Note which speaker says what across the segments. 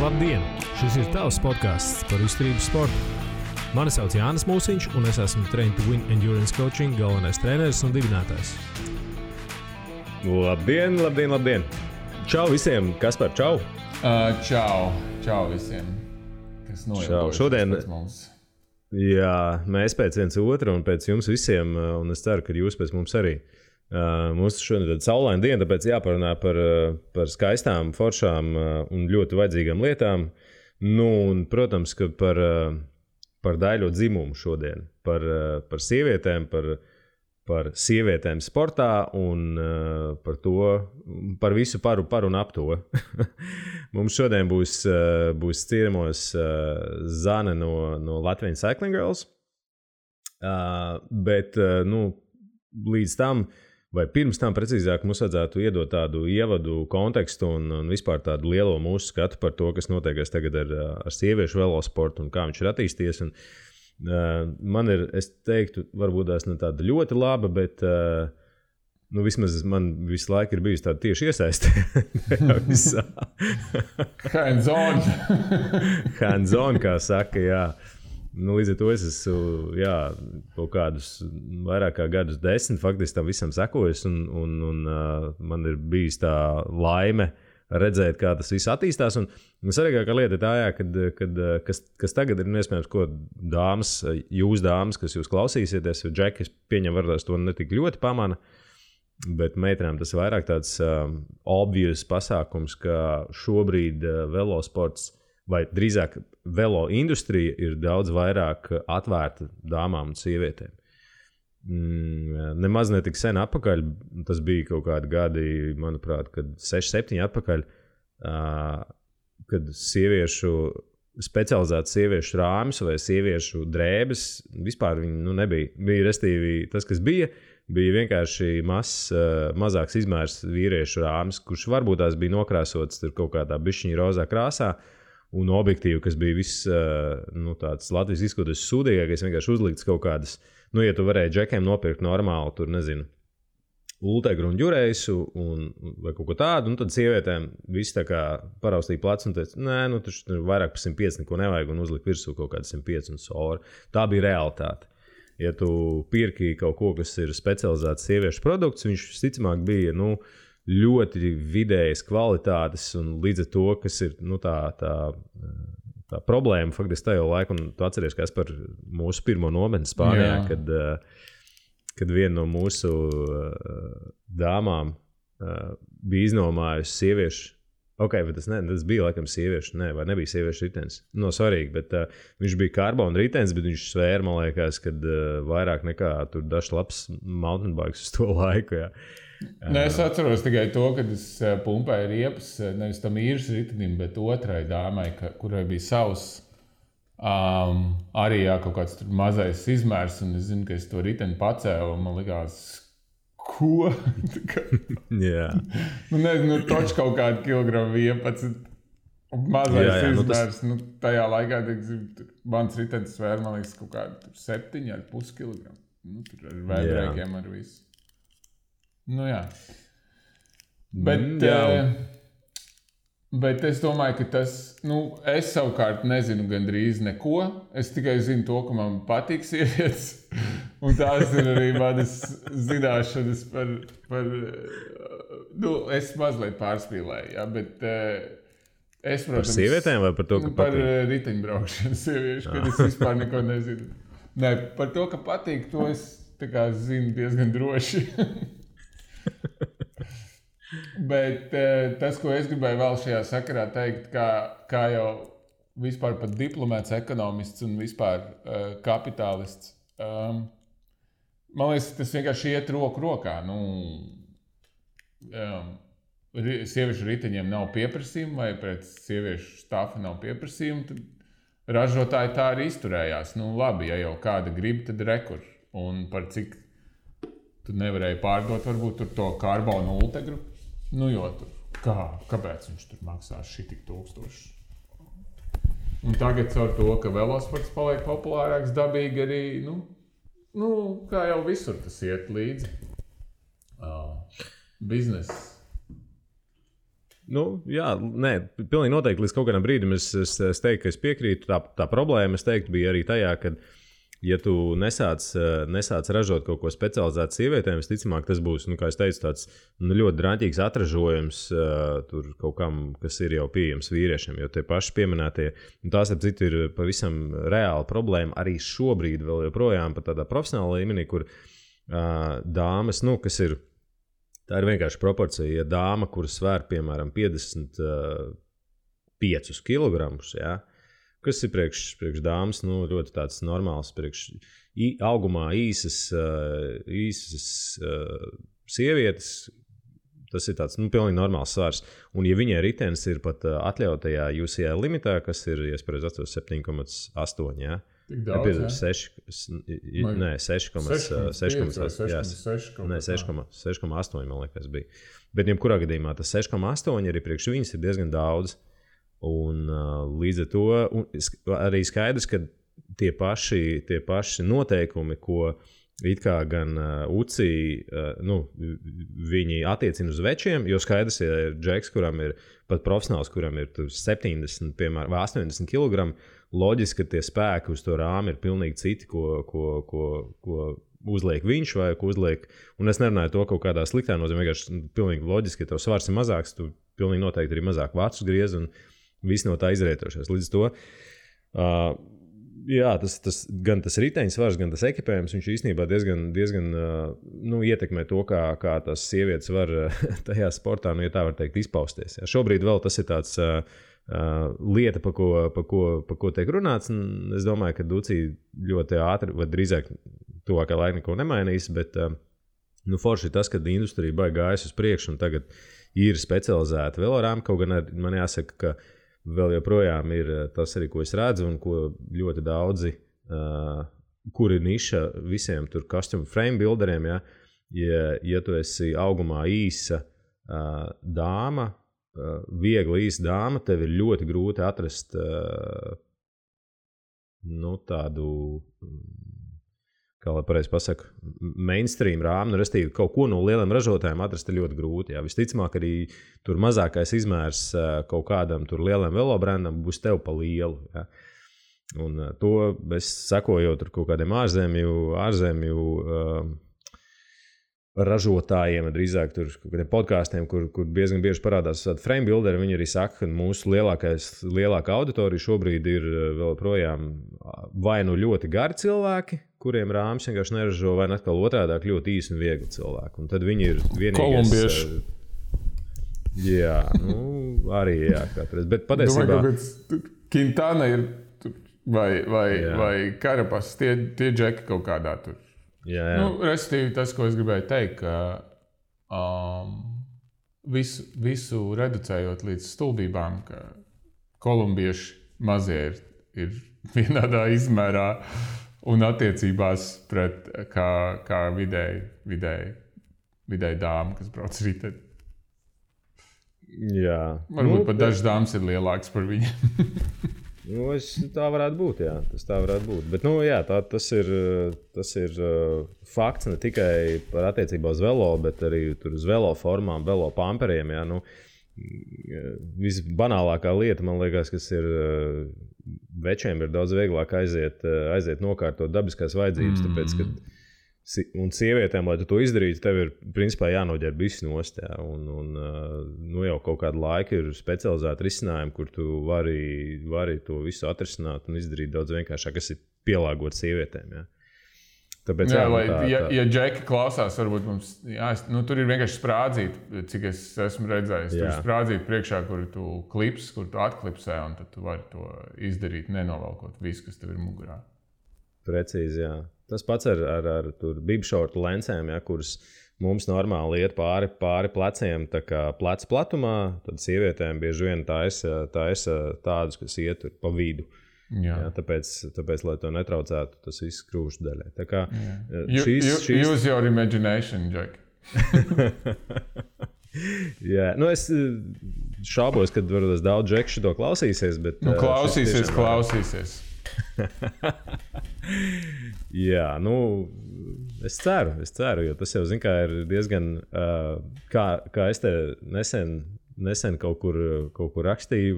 Speaker 1: Labdien! Šis ir tavs podcasts par izturības sportu. Mani sauc Jānis Mūsiņš, un es esmu Train to Win Endurance Coaching galvenais treneris un dibinātājs.
Speaker 2: Labdien, labdien, labdien! Čau visiem! Kaspar, čau!
Speaker 3: Čau visiem! Kas noilgojušies pēc mums?
Speaker 2: Jā, mēs pēc viens otru un pēc jums visiem, un es ceru, ka jūs pēc mums arī. Mums šodien ir saulaina diena, tāpēc jāparunā par skaistām, foršām un ļoti vajadzīgām lietām. Nu, un, protams, ka par daļo dzimumu šodien, par sievietēm, par sievietēm sportā un par visu par un ap to. Mums šodien būs ciemos Zane no Latvian Cycling Girls, bet līdz tam, vai pirms tam precīzāk, mums vajadzētu iedot tādu ievadu kontekstu un vispār tādu lielo mūsu skatu par to, kas notiekās tagad ar sieviešu velosportu un kā viņš ir attīstījies. Un, man ir, es teiktu, varbūt tās ne tāda ļoti laba, bet vismaz man visu laiku ir bijusi tāda tieši iesaiste. Hands on, kā saka, jā. Līdz ar to es esmu kaut kādus vairāk kā gadus 10 faktiski tam visam sekojis, un man ir bijis tā laime redzēt, kā tas viss attīstās. Un svarīgākā lieta ir tā, kas tagad ir iespējams, ko dāmas, kas jūs klausīsieties, jo Džeki, es pieņemu, varbūt to ne tik ļoti pamana, bet meitenēm tas vairāk tāds obvious pasākums, ka šobrīd velosports vai drīzāk velo industrija ir daudz vairāk atvērta dāmām un sievietēm. Nemaz ne tik sen atpakaļ, tas bija kaut kādi gadi, manuprāt, kad 6-7 atpakaļ, kad specializēts sieviešu rāmis vai sieviešu drēbes, vispār viņi nebija. Bija restīvi tas, kas bija vienkārši mazāks izmērs vīriešu rāmis, kurš varbūt tās bija nokrāsots tur kaut kādā bišķiņa rozā krāsā, un objektīvi, kas bija viss tāds Latvijas izskatoties sūdīgākais, vienkārši uzlikts kaut kādas, ja tu varēji Džekiem nopirkt normāli, tur nezinu, ultegru un ģurēsu vai kaut ko tādu, un tad sievietēm visi tā kā paraustīja plecu un teica, nē, tur vairāk par 105 neko nevajag un uzlikt virsū kaut kādu 105 un soru. Tā bija realitāte. Ja tu pirki kaut ko, kas ir specializēts sieviešu produkts, viņš visticamāk bija, ļoti vidējas kvalitātes, un līdz ar to, kas ir tā problēma faktiski tajā laikā, un tu atceries, kas par mūsu pirmo nometni Spānijā, kad viena no mūsu dāmām bija iznomājusi sieviešu. Bet tas bija laikam sieviešu, vai nebija sieviešu ritenis. Svarīgi, bet viņš bija karbona ritenis, bet viņš svēra, man liekas, kad vairāk nekā tur dažs labs mountain bikes uz to laiku, jā.
Speaker 3: Es atceros tikai to, kad es pumpēju riepas, nevis tam īres ritenim, bet otrai dāmai, kurai bija savs arī kaut kāds mazais izmērs, un es zinu, ka es to riteni pacēlu, un man likās, ko?
Speaker 2: Jā.
Speaker 3: Toč kaut kādu kilogramu 11, mazais izmērs, tajā laikā, mans ritenis svēra, man liekas, kaut kādu 7,5 kilogramu. Tur ar vēdrēkiem ar visu. Jā. Bet es domāju, ka tas, es savukārt nezinu gandrīz neko. Es tikai zinu to, ka man patīk sievietes. Un tās ir arī manas zināšanas par es mazliet pārspīlēju, bet es, protams...
Speaker 2: Par sievietēm vai par to, ka
Speaker 3: patīk? Par riteņbraukšanu sieviešu, kad es vispār neko nezinu. Nē, par to, ka patīk, to es tā kā zinu diezgan droši. Bet tas, ko es gribēju vēl šajā sakarā teikt, kā jau vispār pat diplomēts ekonomists un vispār kapitālists, man liekas, tas vienkārši iet roku rokā. Sieviešu riteņiem nav pieprasījuma vai pret sieviešu stāfa nav pieprasījuma, tad ražotāji tā arī izturējās. Labi, ja jau kāda grib, tad rekur. Un par cik tu nevarēji pārdot varbūt tur to karbonu ultegru. Jo tur, kāpēc viņš tur maksās šitik 1000? Un tagad ar to, ka velosports paliek populārāks, dabīgi arī, kā jau visur tas iet līdzi. Bizness
Speaker 2: Jā, nē, pilnīgi noteikti līdz kaut kādam brīdim es teiktu, ka es piekrītu. Tā problēma, es teiktu, bija arī tajā, ka, ja tu nesāc ražot kaut ko specializētu sievietēm, visticamāk, tas būs, kā es teicu, tāds ļoti draņķīgs atražojums tur kaut kam, kas ir jau pieejams vīriešiem. Jo tie paši pieminētie, tās, ap citu, ir pavisam reāla problēma arī šobrīd vēl joprojām pat tādā profesionālā līmenī, kur dāmas, kas ir. Tā ir vienkārši proporcija. Ja dāma, kuras svēr, piemēram, 55 kg, kas ir priekš dāmas, ļoti tāds normāls, augumā īsas sievietes, tas ir tāds pilnīgi normāls svars. Un ja viņai ritenis ir pat atļautajā UCI limitā, kas ir, ja es pareizi atceros, 7,8,
Speaker 3: Tik daudz,
Speaker 2: 6,8, man liekas, bija. Bet jebkurā gadījumā tas 6,8 arī priekš viņas ir diezgan daudz. Un līdz ar to arī skaidrs, ka tie paši noteikumi, ko it kā gan UCI, viņi attiecina uz večiem, jo skaidrs, ja ir džeks, kuram ir pat profesionāls, kuram ir 70, piemēram, vai 80 kg, loģiski, ka tie spēki uz to rāmi ir pilnīgi citi, ko uzliek viņš vai ko uzliek. Un es nerunāju to kaut kādā sliktā nozīmē, vienkārši pilnīgi loģiski, ja tev svars ir mazāks, tu pilnīgi noteikti arī mazāk vācus griez un viss no tā izrietošais. Līdz to, gan tas riteņu svars, gan tas ekipējums, viņš īstenībā diezgan ietekmē to, kā tas sievietes var tajā sportā, ja tā var teikt, izpausties. Jā. Šobrīd vēl tas ir tāds lieta, pa ko tiek runāts. Es domāju, ka UCI ļoti ātri, vai drīzāk tuvākā laika neko nemainīs, bet forši ir tas, ka industrija baigi gājas uz priekšu un tagad ir specializēta velorāma. Kaut gan man jāsaka, ka vēl joprojām ir tas arī, ko es redzu un ko ļoti daudzi, kur ir niša visiem tur custom frame builderiem, ja tu esi augumā īsa dāma, viegli īsa dāma, tev ir ļoti grūti atrast tādu, kā lai pareizi pasaku, mainstream rāmu, restīvi kaut ko no lieliem ražotājiem atrast ir ļoti grūti. Jā. Visticamāk arī tur mazākais izmērs kaut kādam tur lielam velobrandam būs tev pa lielu. Jā. Un to es sekoju tur kaut kādiem ārzemju ražotājiem, drīzāk tur kaut kādiem podkāstiem, kur diezgan bieži parādās frame builderi. Viņi arī saka, ka mūsu lielākā auditorija šobrīd ir vēl projām vai ļoti gari cilvēki, kuriem rāmis vienkārši neražo, vai atkal otrādāk ļoti īsi un viegli cilvēki. Un tad viņi ir vienīgais...
Speaker 3: Kolumbieši.
Speaker 2: Jā, arī katreiz. Bet patiesībā...
Speaker 3: Quintana ir vai Karapas, tie džeki kaut kādā tur.
Speaker 2: Jā.
Speaker 3: Restīvi tas, ko es gribēju teikt, ka visu reducējot līdz stulbībām, ka kolumbieši mazie ir vienādā izmērā un attiecībās pret kā vidēji dāma, kas brauc riteni.
Speaker 2: Jā.
Speaker 3: Varbūt pat dažas dāmas ir lielākas par viņiem.
Speaker 2: Tā varētu būt, jā. Tas tā varētu būt. Bet, tas ir fakts ne tikai par attiecībā uz velo, bet arī tur uz velo formām, velo pamperiem, jā. Visbanālākā lieta, man liekas, kas ir večiem ir daudz vieglāk aiziet nokārtot dabiskās vajadzības, tāpēc, ka un sievietēm, lai tu to izdarītu, tev ir principā jānoģērb viss nost. Jā. Un jau kaut kādu laiku ir specializēti risinājumi, kur tu vari to visu atrisināt un izdarīt daudz vienkāršāk, kas ir pielāgots sievietēm. Jā. Tāpēc,
Speaker 3: ja džeki klausās, varbūt mums tur ir vienkārši sprādzīti, cik es esmu redzējis. Tur ir sprādzīti priekšā, kur tu klips, kur tu atklipsē, un tad tu vari to izdarīt, nenovalkot visu, kas tev ir mugurā.
Speaker 2: Precīzi, jā. Tas pats ar bibšortu lencēm, ja, kuras mums normāli iet pāri pleciem, tā kā pleca platumā, tad sievietēm bieži vien taisa tādus, kas iet pa vidu. Jā. Jā, tāpēc, lai to netraucētu, tas viss krūšu daļai. Tā kā
Speaker 3: Use your imagination, Jack.
Speaker 2: Jā, es šaubos, kad varbūt daudz džeku šito klausīsies, bet...
Speaker 3: Klausīsies.
Speaker 2: Jā, es ceru, jo tas jau, ir diezgan, kā es te nesen nesen kaut kur rakstīju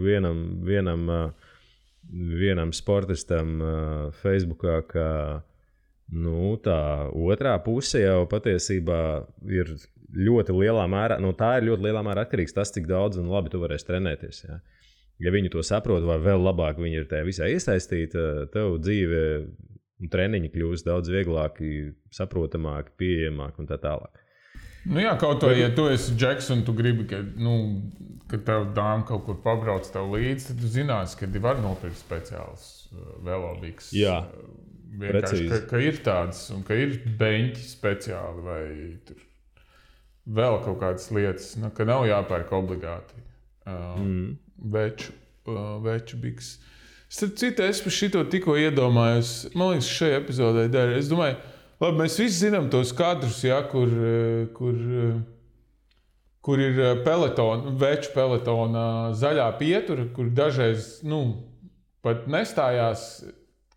Speaker 2: vienam sportistam Facebookā, ka tā otrā puse jau patiesībā ir ļoti lielā mērā, tā ir ļoti lielā mērā atkarīgs tas, cik daudz un labi tu varēsi trenēties. Ja, ja viņi to saprot, vai vēl labāk viņi ir tajā visā iesaistīti, tev dzīve un treniņi kļūst daudz vieglāki, saprotamāki, pieejamāki un tā tālāk.
Speaker 3: Jā, kaut vai, ja tu esi Džeks un tu gribi, ka tev dāma kaut kur pabrauc tev līdzi, tad tu zināsi, ka var nopirkt speciāls velobiks.
Speaker 2: Jā,
Speaker 3: vienkārši, ka ir tāds un ka ir beņķi speciāli vai tur vēl kaut kādas lietas, ka nav jāpērk obligāti veču biks. Starp citu, es par šito tikko iedomājos, man liekas, šajā epizodē dara. Es domāju, labi, mēs visi zinām tos kadrus, ja, kur ir veču peletona zaļā pietura, kur dažreiz pat nestājās,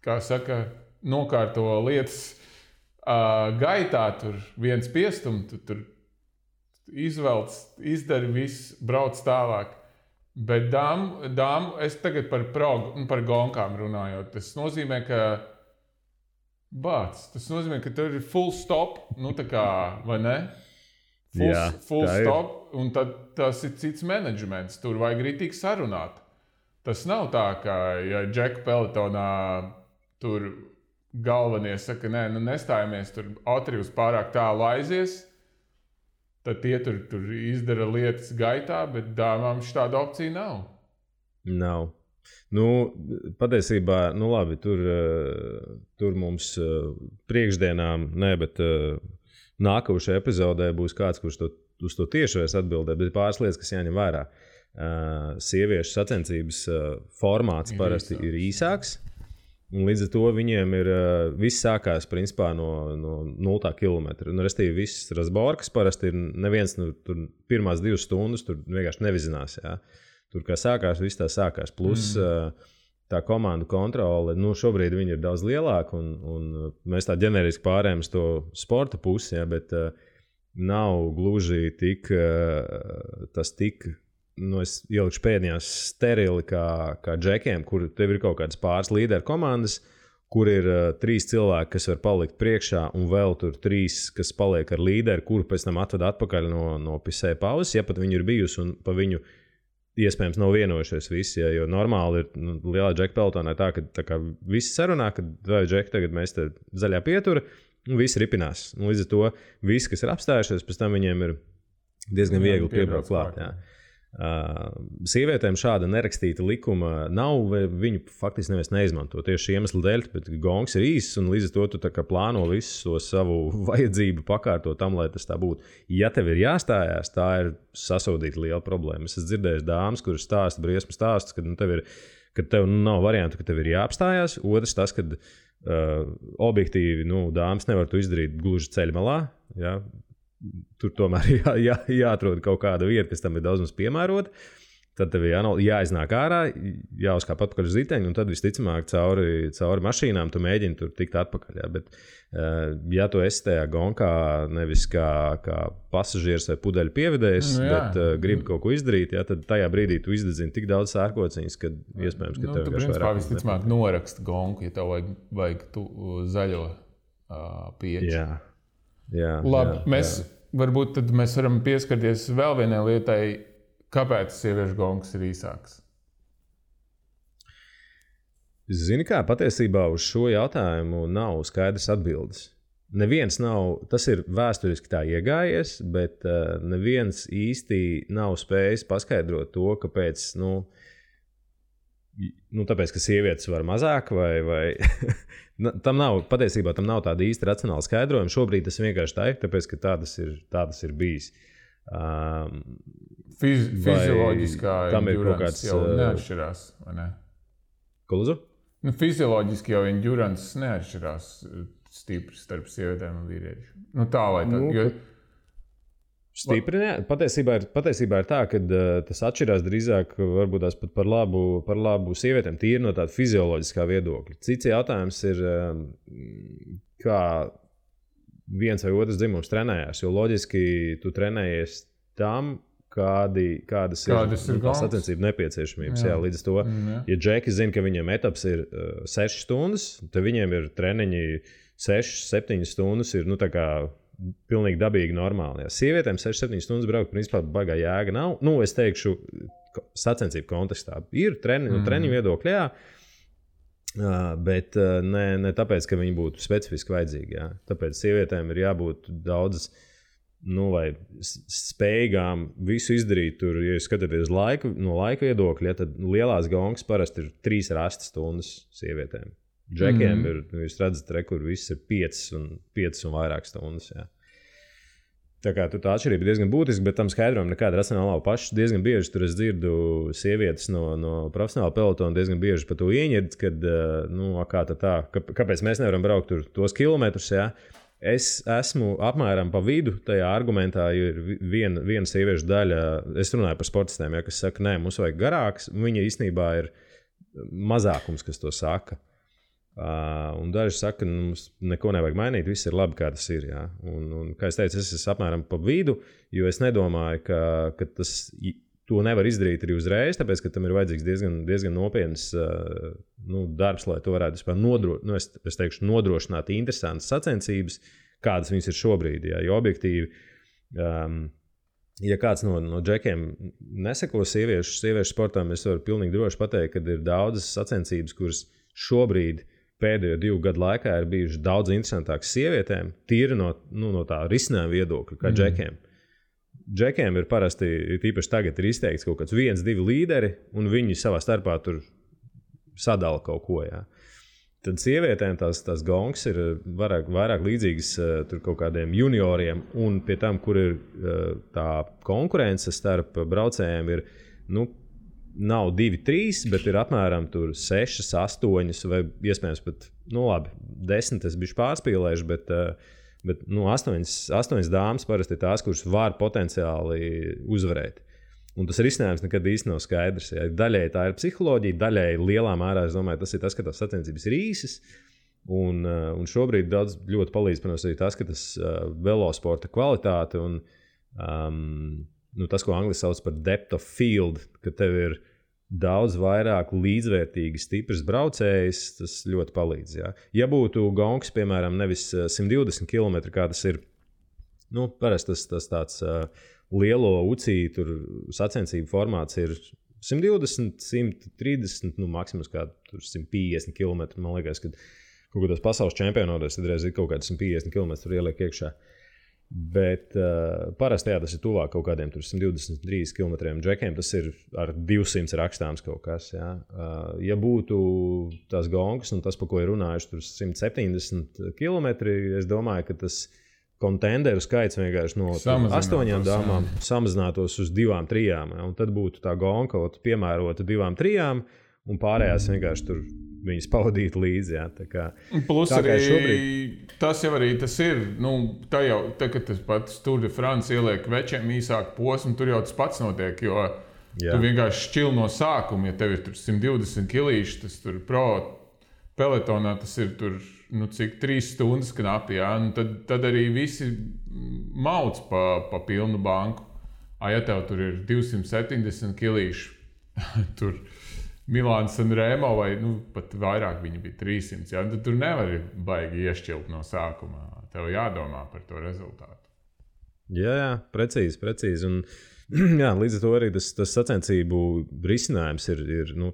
Speaker 3: kā saka, nokārto lietas gaitā, tur viens piestum, tu tur izvelc, izdari viss, brauc tālāk. Bet dāmu, es tagad par gonkām runājot, tas nozīmē, ka tev ir full stop, tā kā, vai ne? Full stop, un tad tas ir cits menedžments, tur vajag ritīgi sarunāt. Tas nav tā, ka, ja Džeka peletonā tur galvenie saka, nē, nestājamies, tur Atrius pārāk tālu aizies, tad tie tur izdara lietas gaitā, bet dāmām šāda opcija nav.
Speaker 2: Nav. Patiesībā, labi, tur mums priekšdienām, bet nākošajā epizodē būs kāds, kurš uz to tieši vairs atbildē, bet pāris lietas, kas jāņem vērā. Sieviešu sacensības formāts parasti ir īsāks. Un līdz ar to viņiem ir viss sākās principā no 0 kilometra. Restīvi viss razborkas parasti ir neviens tur pirmās 2 stundas tur vienkārši nevizinās. Ja. Tur kā sākās, viss tā sākās. Plus tā komandu kontrole, šobrīd viņi ir daudz lielāka un mēs tā ģeneriski pārējām uz to sporta pusi, ja, bet nav gluži tik es ielikšu pēdējās sterili kā džekiem, kur tev ir kaut kādas pāris līderu komandas, kur ir 3 cilvēki, kas var palikt priekšā, un vēl tur 3, kas paliek ar līderi, kuru pēc tam atved atpakaļ no pisē pauzes, ja pat viņi ir bijusi un pa viņu iespējams nav vienojušies visi, ja, jo normāli ir lielā džeka pelotonā tā, ka tā kā visi sarunā, ka vai džeki tagad mēs te zaļā pietura, un visi ripinās. Un līdz ar to visi, kas ir apstājušies, pēc tam viņiem ir diezgan viegli piebraukt klāt. Jā. Sievietēm šāda nerakstīta likuma nav, vai viņu faktiski neviens neizmanto tieši iemeslu dēļ, bet gongs ir īss un līdz ar to tu tā kā plāno visu to savu vajadzību pakārtot tam, lai tas tā būtu. Ja tev ir jāstājās, tā ir sasodīta liela problēma. Es esmu dzirdējis dāmas, kuras stāsta briesmu stāstus, kad tev nav variantu, ka tev ir jāapstājās. Otrs tas, kad objektīvi dāmas nevar to izdarīt gluži ceļmalā, ja. Tur tomēr jāatrod kaut kāda vieta, kas tam ir daudz mums piemērota. Tad tev jāiznāk ārā, jāuzkāp atpakaļ uz riteņu, un tad visticamāk cauri mašīnām tu mēģini tur tikt atpakaļ. Ja. Bet, ja tu esi tajā gonkā nevis kā pasažieris vai pudeļu pievedējs, bet gribi kaut ko izdarīt, ja, tad tajā brīdī tu izdedzini tik daudz sērkociņas, ka iespējams, ka tev
Speaker 3: vienkārši vairāk. Tu visticamāk noraksti gonku, ja tev vajag zaļo pieķi.
Speaker 2: Jā,
Speaker 3: labi, varbūt tad mēs varam pieskarties vēl vienai lietai, kāpēc sieviešu gongs ir īsāks.
Speaker 2: Zini kā, patiesībā uz šo jautājumu nav skaidrs atbildes. Neviens nav, tas ir vēsturiski tā iegājies, bet neviens īsti nav spējis paskaidrot to, kāpēc, tāpēc, ka sievietes var mazāk vai patiesībā tam nav tāda īsta racionāla skaidrojuma. Šobrīd tas vienkārši tā ir, tāpēc, ka tā tas ir bijis.
Speaker 3: Fizioloģiskā endurance jau neatšķirās, vai ne?
Speaker 2: Ko lūdzu?
Speaker 3: Fizioloģiski jau endurance neatšķirās stipri starp sievietēm un vīriešiem. Tā vai tā.
Speaker 2: Stipri, patiesībā ir tā, ka tas atšķirās drīzāk varbūt tās pat par labu sievietēm, tīri no tāda fizioloģiskā viedokļa. Cits jautājums ir, kā viens vai otrs dzimums trenējās, jo loģiski tu trenējies tam, kādas ir sacensību nepieciešamības. Jā, līdz to, ja džeki zina, ka viņiem etaps ir 6 stundas, tad viņiem ir treniņi 6-7 stundas ir, tā kā pilnīgi dabīgi normāli. Jā. Sievietēm 6-7 stundas braukt, principā baigā jēga nav. Es teikšu, sacensību kontekstā ir treniņu viedokļi, jā. Bet ne tāpēc, ka viņi būtu specifiski vajadzīgi. Jā. Tāpēc sievietēm ir jābūt daudzas vai spējīgām visu izdarīt. Tur, ja skatāties no laika viedokļa, tad lielās gongas parasti ir 3-8 stundas sievietēm. Džekiem ir, jūs redzat, kur viss ir 5 un vairāk stundas. Jā. Tā kā tā atšķirība ir diezgan būtiska, bet tam skaidrojam nekāda racionāla nav. Pašs diezgan bieži tur es dzirdu sievietes no profesionāla pelotona diezgan bieži par to ieņird, kad, kāpēc mēs nevaram braukt tur tos kilometrus, jā. Es esmu apmēram pa vidu tajā argumentā, jo ir viena sieviešu daļa, es runāju par sportistiem, ja, kas saka, nē, mums vajag garāks, viņa īstenībā ir mazākums, kas to saka. Un daži saka, mums neko nevajag mainīt, viss ir labi, kā tas ir. Jā. Un, kā es teicu, es esmu apmēram pa vidu, jo es nedomāju, ka to nevar izdarīt arī uzreiz, tāpēc, ka tam ir vajadzīgs diezgan nopietns darbs, lai to varētu nodrošināt interesantas sacensības, kādas viņas ir šobrīd. Jā. Jo objektīvi, ja kāds no džekiem neseko sieviešu sportām, es varu pilnīgi droši pateikt, ka ir daudzas sacensības, kuras šobrīd pēdējo 2 gadu laikā ir bijušas daudz interesantākas sievietēm, tīri no tā risinājuma viedokļa, kā džekiem. Džekiem ir parasti, tīpaši tagad ir izteikts kaut kāds 1-2 līderi, un viņi savā starpā tur sadala kaut ko. Jā. Tad sievietēm tās gongas ir vairāk līdzīgas tur kaut kādiem junioriem, un pie tam, kur ir tā konkurence starp braucējiem, ir, nav 2-3, bet ir apmēram 6, 8 vai iespējams pat, 10 es biju pārspīlējuši, bet 8 dāmas parasti ir tās, kuras var potenciāli uzvarēt. Un tas risinājums nekad īsti nav skaidrs. Ja. Daļēji tā ir psiholoģija, daļēji lielā mērā, es domāju, tas ir tas, ka tās sacensības ir īsas. Un šobrīd daudz ļoti palīdz, protams, arī tas, ka tas velosporta kvalitāte un tas, ko angliski sauc par depth of field, ka tev ir daudz vairāk līdzvērtīgi stiprs braucējs, tas ļoti palīdz. Jā. Ja būtu gongs, piemēram, nevis 120 km, kā tas ir, parasti tas tāds lielo UCI tur sacensību formāts ir 120, 130, maksimums kā 150 km, man liekas, kad kaut kādos pasaules čempionātos tad reiz ir kaut kādi 150 km tur ieliek iekšā. Bet parasti tas ir tuvāk kaut kādiem 123 km džekiem, tas ir ar 200 rakstāms kaut kas. Jā. Ja būtu tās gongas un tas, pa ko ir runājuši, tur 170 km, es domāju, ka tas kontenderu skaits vienkārši no 8 dāmām samazinātos uz 2-3. Un tad būtu tā gonga kaut piemērota 2-3 un pārējās vienkārši tur viņas pavadīt līdzi. Jā,
Speaker 3: plus arī šobrīd... tas jau arī tas ir. Kad tas pats Tour de France ieliek večiem īsāku posmu, tur jau tas pats notiek, jo tu vienkārši šķil no sākuma, ja tev ir tur 120 kilīši, tas tur pro peletonā tas ir tur, cik 3 stundas knapi, jā, tad arī visi mauc pa pilnu banku. Ja tev tur ir 270 kilīši, tur Milāns un Rēmo vai pat vairāk viņi bija 300, jā, tad tur nevari baigi iešķilt no sākumā. Tev jādomā par to rezultātu.
Speaker 2: Jā, precīzi. Un, jā, līdz ar to arī tas sacensību risinājums ir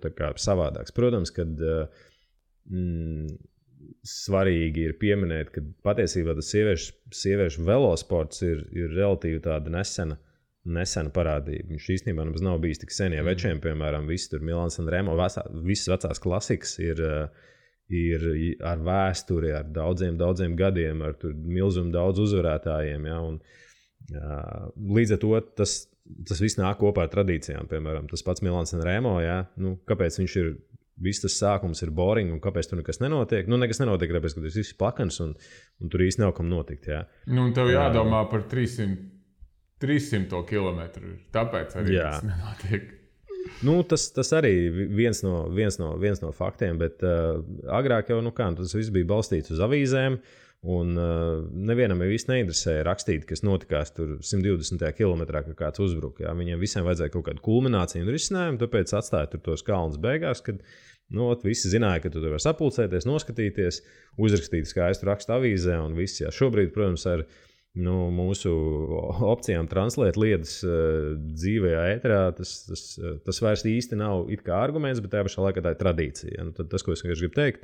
Speaker 2: tā kā savādāks. Protams, kad svarīgi ir pieminēt, ka patiesībā tas sieviešu velosports ir relatīvi tāda nesena parādība. Viņš īstenībā mums nav bijis tik sen, ja večiem, piemēram, visi tur Milāns un Rēmo, visas vecās klasikas ir ar vēsturi, ar daudziem gadiem, ar tur milzumu daudz uzvarētājiem, ja, un līdz ar to tas viss nāk kopā ar tradīcijām, piemēram, tas pats Milāns un Rēmo, ja, kāpēc viņš ir, viss tas sākums ir boring un kāpēc tur nekas nenotiek? Nekas nenotiek, tāpēc, ka tas viss ir plakans un tur īsti nav kam notikt, jā.
Speaker 3: Un tev jādomā par 300 kilometru, tāpēc arī tas nenotiek.
Speaker 2: Tas arī viens no faktiem, bet agrāk jau tas viss bija balstīts uz avīzēm, Un nevienam jau īsti neinteresēja rakstīt, kas notikās tur 120. kilometrā, ka kāds uzbruka. Jā. Viņiem visiem vajadzēja kaut kādu kulmināciju un risinājumu, tāpēc atstāja tur tos kalnus beigās, kad visi zināja, ka tu tur var sapulcēties, noskatīties, uzrakstīt skaistu rakstu avīzē un viss. Jā. Šobrīd, protams, ar mūsu opcijām translēt lietas dzīvajā ēterā, tas vairs īsti nav it kā arguments, bet tajā pašā laikā tā ir tradīcija. Ja? Tas, ko es vienkārši gribu teikt,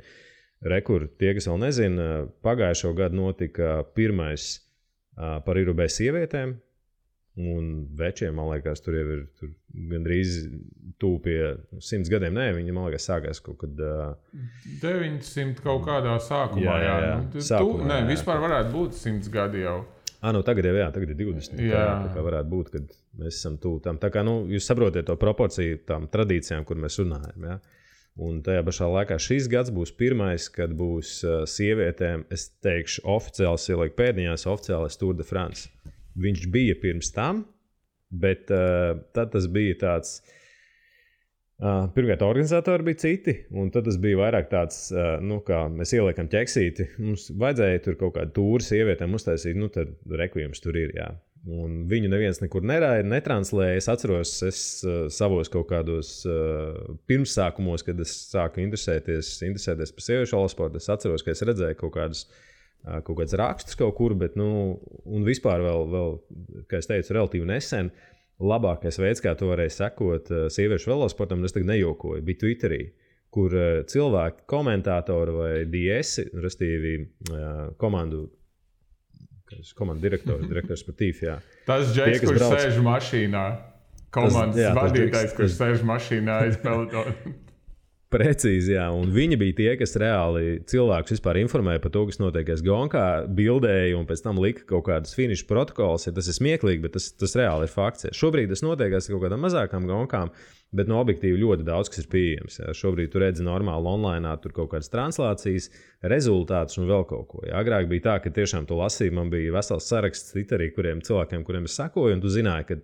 Speaker 2: tie, kas vēl nezina, pagājušo gadu notika pirmais par Irubē sievietēm, un večiem, man liekas, tur jau ir gandrīz tuvu pie 100 gadiem. Nē, viņi, man liekas, sākās kaut kad
Speaker 3: 900 kaut kādā sākumā.
Speaker 2: Sākumā,
Speaker 3: vispār varētu būt 100 gadi jau.
Speaker 2: Tagad ir 20. Tā kā varētu būt, kad mēs esam tuvu tam. Tā kā, jūs saprotiet to proporciju tām tradīcijām, kur mēs runājam, jā. Un tajā pašā laikā šis gads būs pirmais, kad būs sievietēm, es teikšu, oficiāls, ieliek pēdiņās, oficiālais Tour de France. Viņš bija pirms tam, bet tad tas bija tāds, pirmkārt organizatori bija citi, un tad tas bija vairāk tāds, kā mēs ieliekam ķeksīti. Mums vajadzēja tur kaut kādu tūru sievietēm uztaisīt, tad rekvijums tur ir, jā. Un viņu neviens nekur neraida, netranslēja. Es atceros, savos kaut kādos pirmsākumos, kad es sāku interesēties par sieviešu velosportu, es atceros, ka es redzēju kaut kāds rakstus kaut kur, bet, un vispār vēl, kā es teicu, relatīvi nesen, labākais veids, kā to varēja sekot sieviešu velosportam, un es tagad nejokoju, bija Twitterī, kur cilvēki, komentātori vai DS, restīvi komandu direktors sportīvs, jā.
Speaker 3: Tas Džeks, kurš sēž mašīnā. Komandas vadītājs, kurš sēž mašīnā aiz pelotonu.
Speaker 2: Precīzi, jā. Un viņi bija tie, kas reāli cilvēkus vispār informēja par to, kas notiekās Gonkā, bildēja un pēc tam lika kaut kādus finišu protokols. Ja tas ir smieklīgi, bet tas reāli ir fakts. Ja. Šobrīd tas notiekās kaut kādām mazākām Gonkām, bet no objektīvi ļoti daudz, kas ir pieejams. Ja. Šobrīd tu redzi normāli online, tur kaut kādas translācijas, rezultātus un vēl kaut ko. Ja. Agrāk bija tā, ka tiešām tu lasīji, man bija vesels saraksts Twitterī, cilvēkiem, kuriem es sekoju, un tu zināji, ka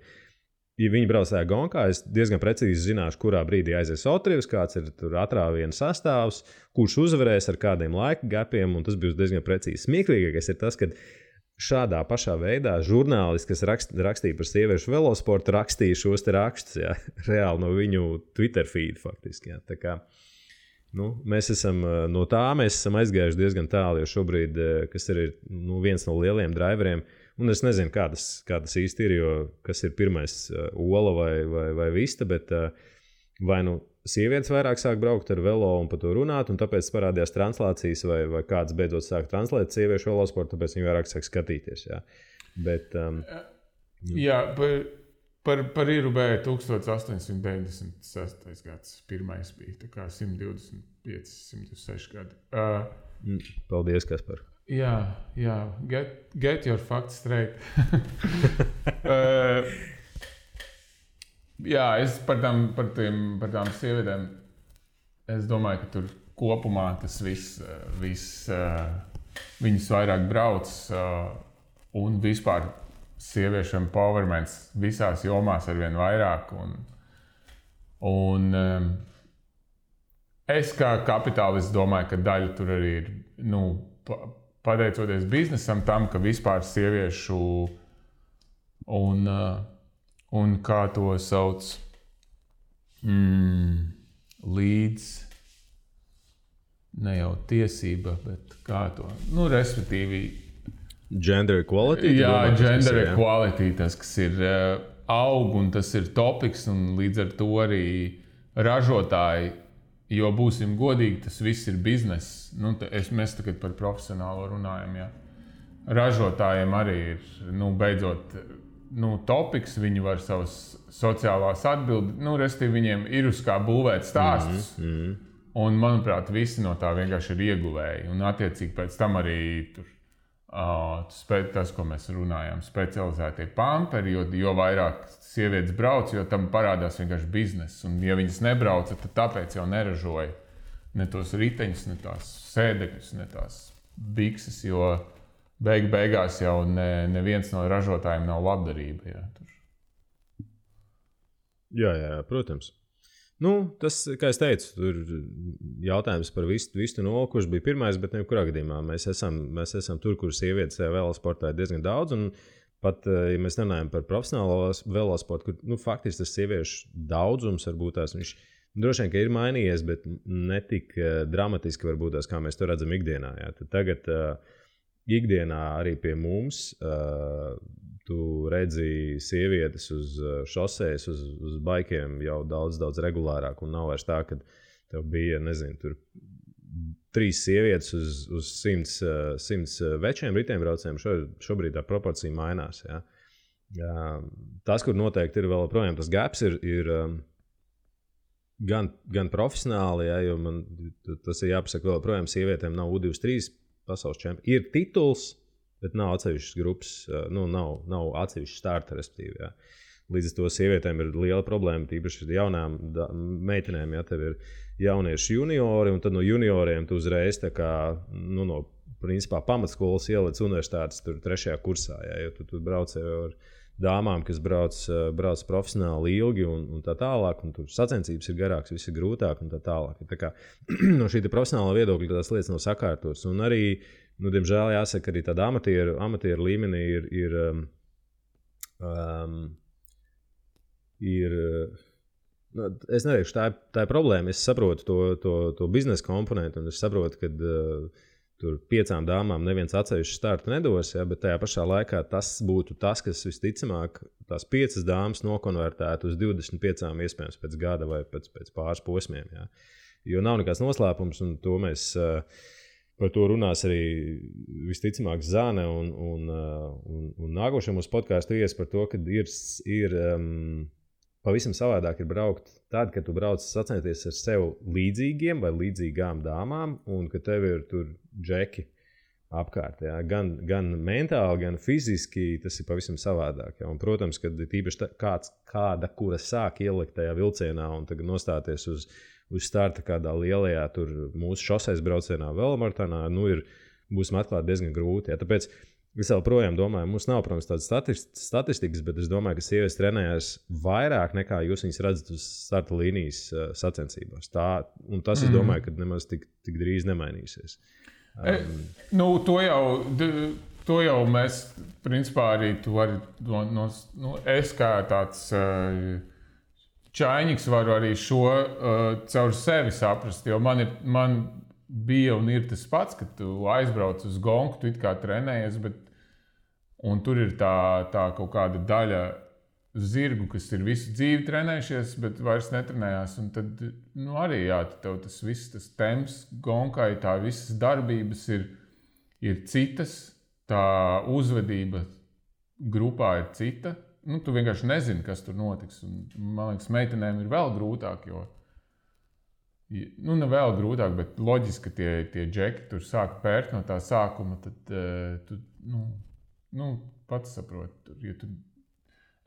Speaker 2: ja viņi brauc tajā Gonkā, es diezgan precīzi zināšu, kurā brīdī aizies Otrivs, kāds ir tur atrāviena sastāvs, kurš uzvarēs ar kādiem laika gapiem, un tas būs diezgan precīzi. Smieklīgākais ir tas, ka šādā pašā veidā žurnālisti, kas rakstīja par sieviešu velosportu, rakstīja šos te rakstus, jā, reāli no viņu Twitter feed faktiski. Jā. Tā kā, mēs esam no tā, mēs esam aizgājuši diezgan tālu, jo šobrīd, kas ir viens no lieliem driveriem, un es nezinu, kā tas īsti ir, jo kas ir pirmais, ola vai vista, bet vai sievietes vairāk sāk braukt ar velo un par to runāt, un tāpēc parādījās translācijas, vai kāds beidzot sāk translēt sieviešu velosportu, tāpēc viņi vairāk sāk skatīties. Jā. Bet,
Speaker 3: jā, par Irubē 1896. gads pirmais bija, tā kā 125, 106 gadi.
Speaker 2: Paldies, Kaspar.
Speaker 3: Jā, get your facts straight. Jā, es par tām sievietēm, es domāju, ka tur kopumā tas viss viņas vairāk brauc, un vispār sieviešu empowerments visās jomās arvien vairāk, un es kā kapitālists domāju, ka daļa tur arī ir, pateicoties biznesam tam, ka vispār sieviešu un kā to sauc līdz ne jau tiesība, bet kā to, respektīvi
Speaker 2: gender equality?
Speaker 3: Jā, gender equality, tas, kas ir aug un tas ir topiks, un līdz ar to arī ražotāji, jo būsim godīgi, tas viss ir bizness. Mēs tagad par profesionālo runājam, jā. Ražotājiem arī ir, beidzot, topiks, viņi var savas sociālās atbildes, respektīvi viņiem ir uz kā būvēt stāstus. Un, manuprāt, visi no tā vienkārši ir ieguvēji. Un, attiecīgi, pēc tam arī tur, tas, ko mēs runājam, specializētie pamperi, jo vairāk sievietes brauc, jo tam parādās vienkārši bizness. Un, ja viņas nebrauca, tad tāpēc jau neražoja ne tos riteņus, ne tās sēdekļus, ne tās bikses, jo beigās jau neviens no ražotājiem nav labdarība. Jā,
Speaker 2: jā, protams. Tas, kā es teicu, tur jautājums par vistu nolu, kurš bija pirmais, bet nekurā gadījumā mēs esam tur, kur sievietes velosportā ir diezgan daudz. Un pat, ja mēs runājam par profesionālo velosportu, kur faktiski tas sieviešu daudzums varbūt tās viņš droši vien, ka ir mainījies, bet ne tik dramatiski varbūt tās, kā mēs to redzam ikdienā. Jā. Tad tagad ikdienā arī pie mums tu redzi sievietes uz šosejas, uz baikiem jau daudz regulārāk. Un nav vairs tā, ka tev bija, nezinu, tur 3 sievietes uz 100 večiem riteņbraucējiem. Šobrīd tā proporcija mainās. Ja? Tas, kur noteikti ir vēl projām, tas gaps ir gan profesionāli, ja, jo man tas ir jāpasaka vēl projām, sievietēm nav U23 pasaules čempioni. Ir tituls, bet nav atsevišķas grupas, nav atsevišķas starta, respektīvi. Ja. Līdz ar to sievietēm ir liela problēma, tīpaši jaunām meitenēm, ja tev ir jaunieši juniori, un tad no junioriem tu uzreiz tā kā, no principā pamatskolas ieliec universitātes tur 3. kursā, ja, jo tu brauc ar dāmām, kas brauc profesionāli ilgi un tā tālāk, un tur sacensības ir garāks, viss ir grūtāk un tā tālāk. Tā kā no šī profesionāla viedokļa tās lietas nav sakārtotas, un arī diemžēl jāsaka, arī tāda amatieru līmenī ir es neteikšu, tā ir problēma. Es saprotu to biznesa komponentu, un es saprotu, ka tur 5 dāmām neviens atsevišķu startu nedos, ja, bet tajā pašā laikā tas būtu tas, kas visticamāk tās 5 dāmas nokonvertētu uz 25 iespējams pēc gada vai pēc pāris posmiem. Ja. Jo nav nekāds noslēpums, un to mēs par to runās arī visticamāk Zane un nākošajā mūsu podkāstu ies par to, ka ir pavisam savādāk ir braukt tad, kad tu brauc sacensties ar sev līdzīgiem vai līdzīgām dāmām, un ka tev ir tur džeki apkārt. Ja? Gan mentāli, gan fiziski tas ir pavisam savādāk. Ja? Un, protams, kad tīpaši kāda, kura sāk ielikt tajā vilcienā un tagad nostāties uz starta kādā lielajā tur mūsu šosejas braucienā velomaratonā, būsim atklāti diezgan grūti. Ja? Tāpēc es vēl projām domāju, mums nav, protams, tādas statistikas, bet es domāju, ka sievietes trenējas vairāk nekā jūs viņas redzat uz starta līnijas sacensībās. Un tas, es domāju, ka nemaz tik drīz nemainīsies.
Speaker 3: To jau mēs, principā, arī tu vari, es kā tāds čainiks varu arī šo caur sevi saprast, jo man bija un ir tas pats, ka tu aizbrauc uz gonku, tu it kā trenējies, un tur ir tā kaut kāda daļa zirgu, kas ir visu dzīvi trenējušies, bet vairs netrenējās. Un tad arī tev tas viss, tas temps gonkai, tā visas darbības ir citas, tā uzvedība grupā ir cita. Tu vienkārši nezini, kas tur notiks. Un, man liekas, meitenēm ir vēl grūtāk, jo ne vēl grūtāk, bet loģiski, ka tie džeki tur sāk pērt no tā sākuma, tad tu pats saproti.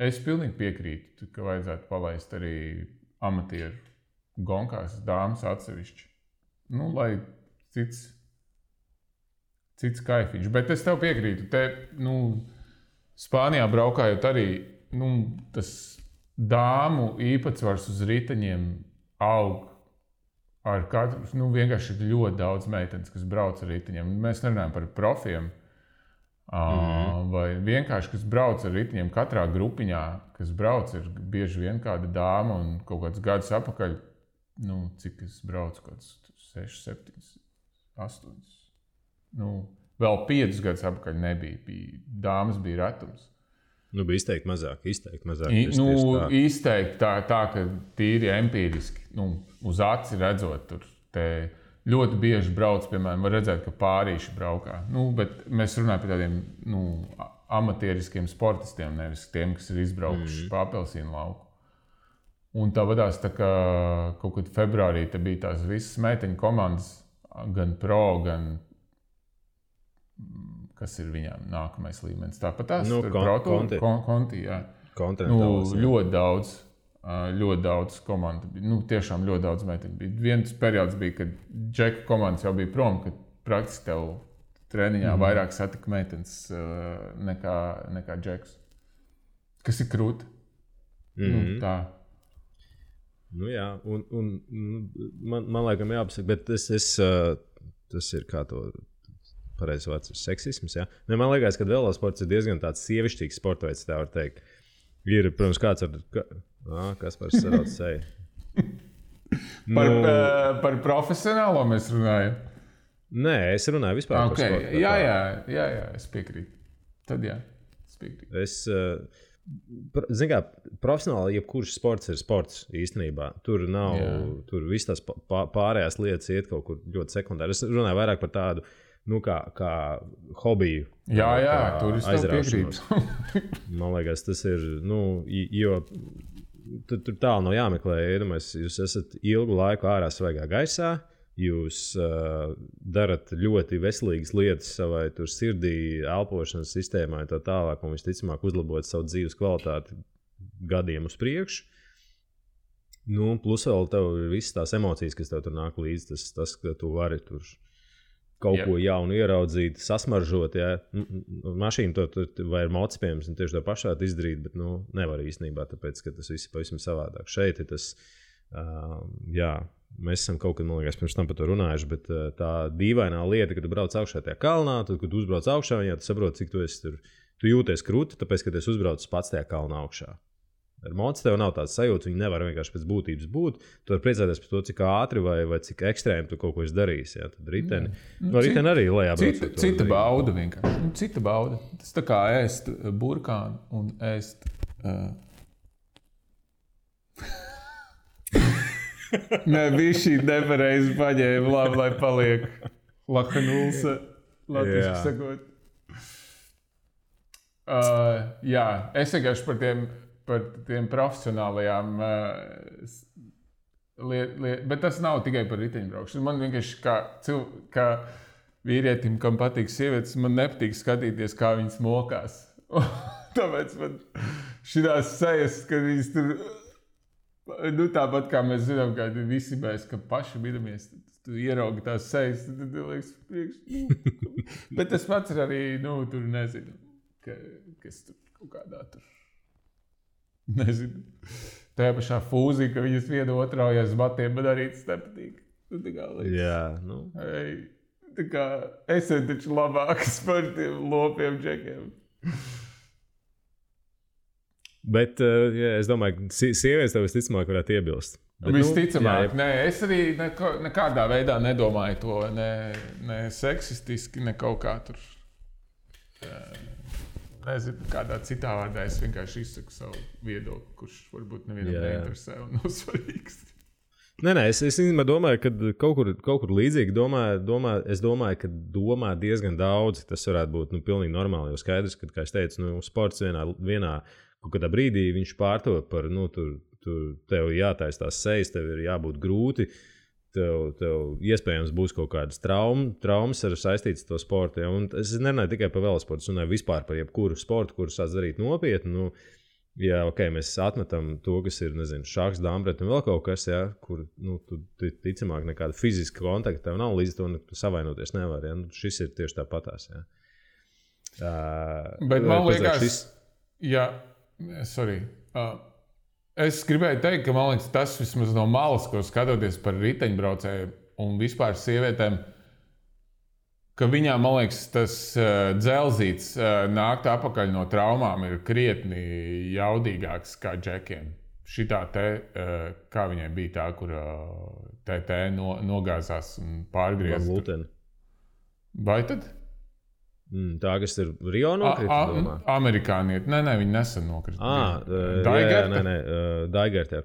Speaker 3: Es pilnīgi piekrītu, ka vajadzētu palaist arī amatieru gonkās dāmas atsevišķi. Lai cits kaifiņš. Bet es tev piekrītu. Spānijā braukājot arī tas dāmu īpatsvars uz riteņiem aug. Ar katru, vienkārši ir ļoti daudz meitenes, kas brauc ar riteņiem. Mēs nerunājam par profiem, vai vienkārši, kas brauc ar riteņiem katrā grupiņā, kas brauc, ir bieži vien kāda dāma un kaut kāds gadus apakaļ, cik es braucu, kāds 6, 7, 8. Vēl 5 gadus apakaļ nebija. Dāmas bija retums.
Speaker 2: Bija izteikti mazāk.
Speaker 3: Izteikti tā, ka tīri empīriski, uz aci redzot, tur ļoti bieži brauc, piemēram, var redzēt, ka pārīši braukā. Bet mēs runājam par tādiem amatieriskiem sportistiem, nevis tiem, kas ir izbraukuši pa apelsīnu lauku. Un tā vadās, tā kā kaut kad februārī te bija tās visas meiteņu komandas, gan pro, gan kas ir viņām nākamais līmenis. Tāpat tās konti, jā. Ļoti daudz komandu bija. Tiešām ļoti daudz meiteņu bija. Viens periods bija, kad džeku komandas jau bija prom, kad praktiski tev treniņā vairāk satika meitenes nekā džekus. Kas ir krūti. Tā.
Speaker 2: Nu, jā, un man laikam jāpasaka, bet tas ir kā to pareizi vārds ir seksisms, jā. Ne, man liekas, ka velosports ir diezgan tāds sievišķīgs sporta veids, tā var teikt. Ir, protams, kāds kas par sarauc seju.
Speaker 3: Par profesionālo mēs runājam?
Speaker 2: Nē, es runāju vispār par sportu.
Speaker 3: Jā, es piekrītu. Tad jā, es piekrītu.
Speaker 2: Zini kā, profesionāli jebkurš sports ir sports īstenībā. Tur nav, tur viss tās pārējās lietas iet kaut kur ļoti sekundāri. Es runāju vairāk par tādu, kā hobiju.
Speaker 3: Jā, tur es tev piekrītu.
Speaker 2: Man liekas, tas ir, jo tur tālu nav jāmeklē. Jūs esat ilgu laiku ārā svaigā gaisā. Jūs darat ļoti veselīgas lietas savai sirdī, elpošanas sistēmai un tā tālāk, un visticamāk uzlabot savu dzīves kvalitāti gadiem uz priekšu. Plus vēl tev ir visas tās emocijas, kas tev tur nāk līdzi, tas ka tu vari tur kaut ko jaunu ieraudzīt, sasmaržot, jā. Mašīnu vai ir motocikliem, un tieši to pašu varētu izdarīt, bet nevar īstenībā, tāpēc, ka tas viss ir pavisam savādāk. Šeit ir tas, mēs esam kaut kad, man liekas, pirms tam par to runājuši, bet tā dīvainā lieta, kad tu brauc augšā tajā kalnā, tad, kad tu uzbrauc augšā, viņā tu saproti, cik tu esi tur, tu jūties krūti, tāpēc, ka tu esi uzbraucis pats tajā kalnā augšā. Ar motociklu tev nav tāds sajūta, viņi nevar vienkārši pēc būtības būt. Tu vari priecāties par to, cik ātri vai cik ekstrēmi tu kaut ko esi darījis. Jā. Tad riteni, riteni arī lejā braucot.
Speaker 3: Cita bauda vienkārši. Cita bauda. Tas tā kā ēst burkānu un ēst... Nē, bija šī nepareizi paņēma, labi, lai paliek lakanulsa, latviski sakot. Es vienkārši par tiem profesionālajām bet tas nav tikai par riteņbraukšanu. Man vienkārši kā vīrietim, kam patīk sievietes, man nepatīk skatīties, kā viņas mokās. Tāpēc man šitās sejas, kad viņas tur... tāpat kā mēs zinām, ka visi mēs, ka paši bidamies, tu ieraugi tās sejas, tad liekas priekš. Bet tas pats ir arī, tur nezinu, kas tur kaut kādā tur, nezinu. Tajā pašā fūzī, ka viņas vienu otraujas batiem, man arī tas nepatīk. Tā kā liekas.
Speaker 2: Jā,
Speaker 3: Tā kā esat taču labākas par tiem lopiem džekiem.
Speaker 2: Bet es domāju, ka sievietes tev visticamāk varētu iebilst. Bet,
Speaker 3: visticamāk, nē, es arī nekādā veidā nedomāju to, ne seksistiski, ne kaut kā tur. Nezinu, kādā citā vārdā es vienkārši izsaku savu viedokli, kurš varbūt nevienam neinteresē un nav svarīgs.
Speaker 2: Nē, es domāju, ka kaut kur līdzīgi es domāju, ka domā diezgan daudz. Tas varētu būt pilnīgi normāli, jo skaidrs, ka, kā es teicu, sports vienā kaut kādā brīdī viņš pārtop par, tev jātaisa tās sejas, tev ir jābūt grūti, tev iespējams būs kaut kādas traumas ar saistītas to sportu. Ja? Un es nerunāju tikai par velosportu, es runāju vispār par jebkuru sportu, kuru sāc darīt nopietni. Jā, mēs atmetam to, kas ir, nezinu, šahs, dambret un vēl kaut kas, ja? Kur, tu ticamāk nekāda fiziska kontakta tev nav, līdz to tu savainoties nevar. Ja? Šis ir tieši tāpatās. Ja?
Speaker 3: Bet man liekas, es gribēju teikt, ka man liekas, tas vismaz no malas, ko skatoties par riteņbraucēju un vispār sievietēm, ka viņām, man liekas, tas dzelzīts nākt apakaļ no traumām ir krietni jaudīgāks kā džekiem. Šitā kā viņai bija tā, kur TT nogāzās un pārgriezta. Vai tad?
Speaker 2: Tā, kas ir Rio nokrita?
Speaker 3: Amerikānieti. Nē, viņi nesen nokrita.
Speaker 2: Daigertē.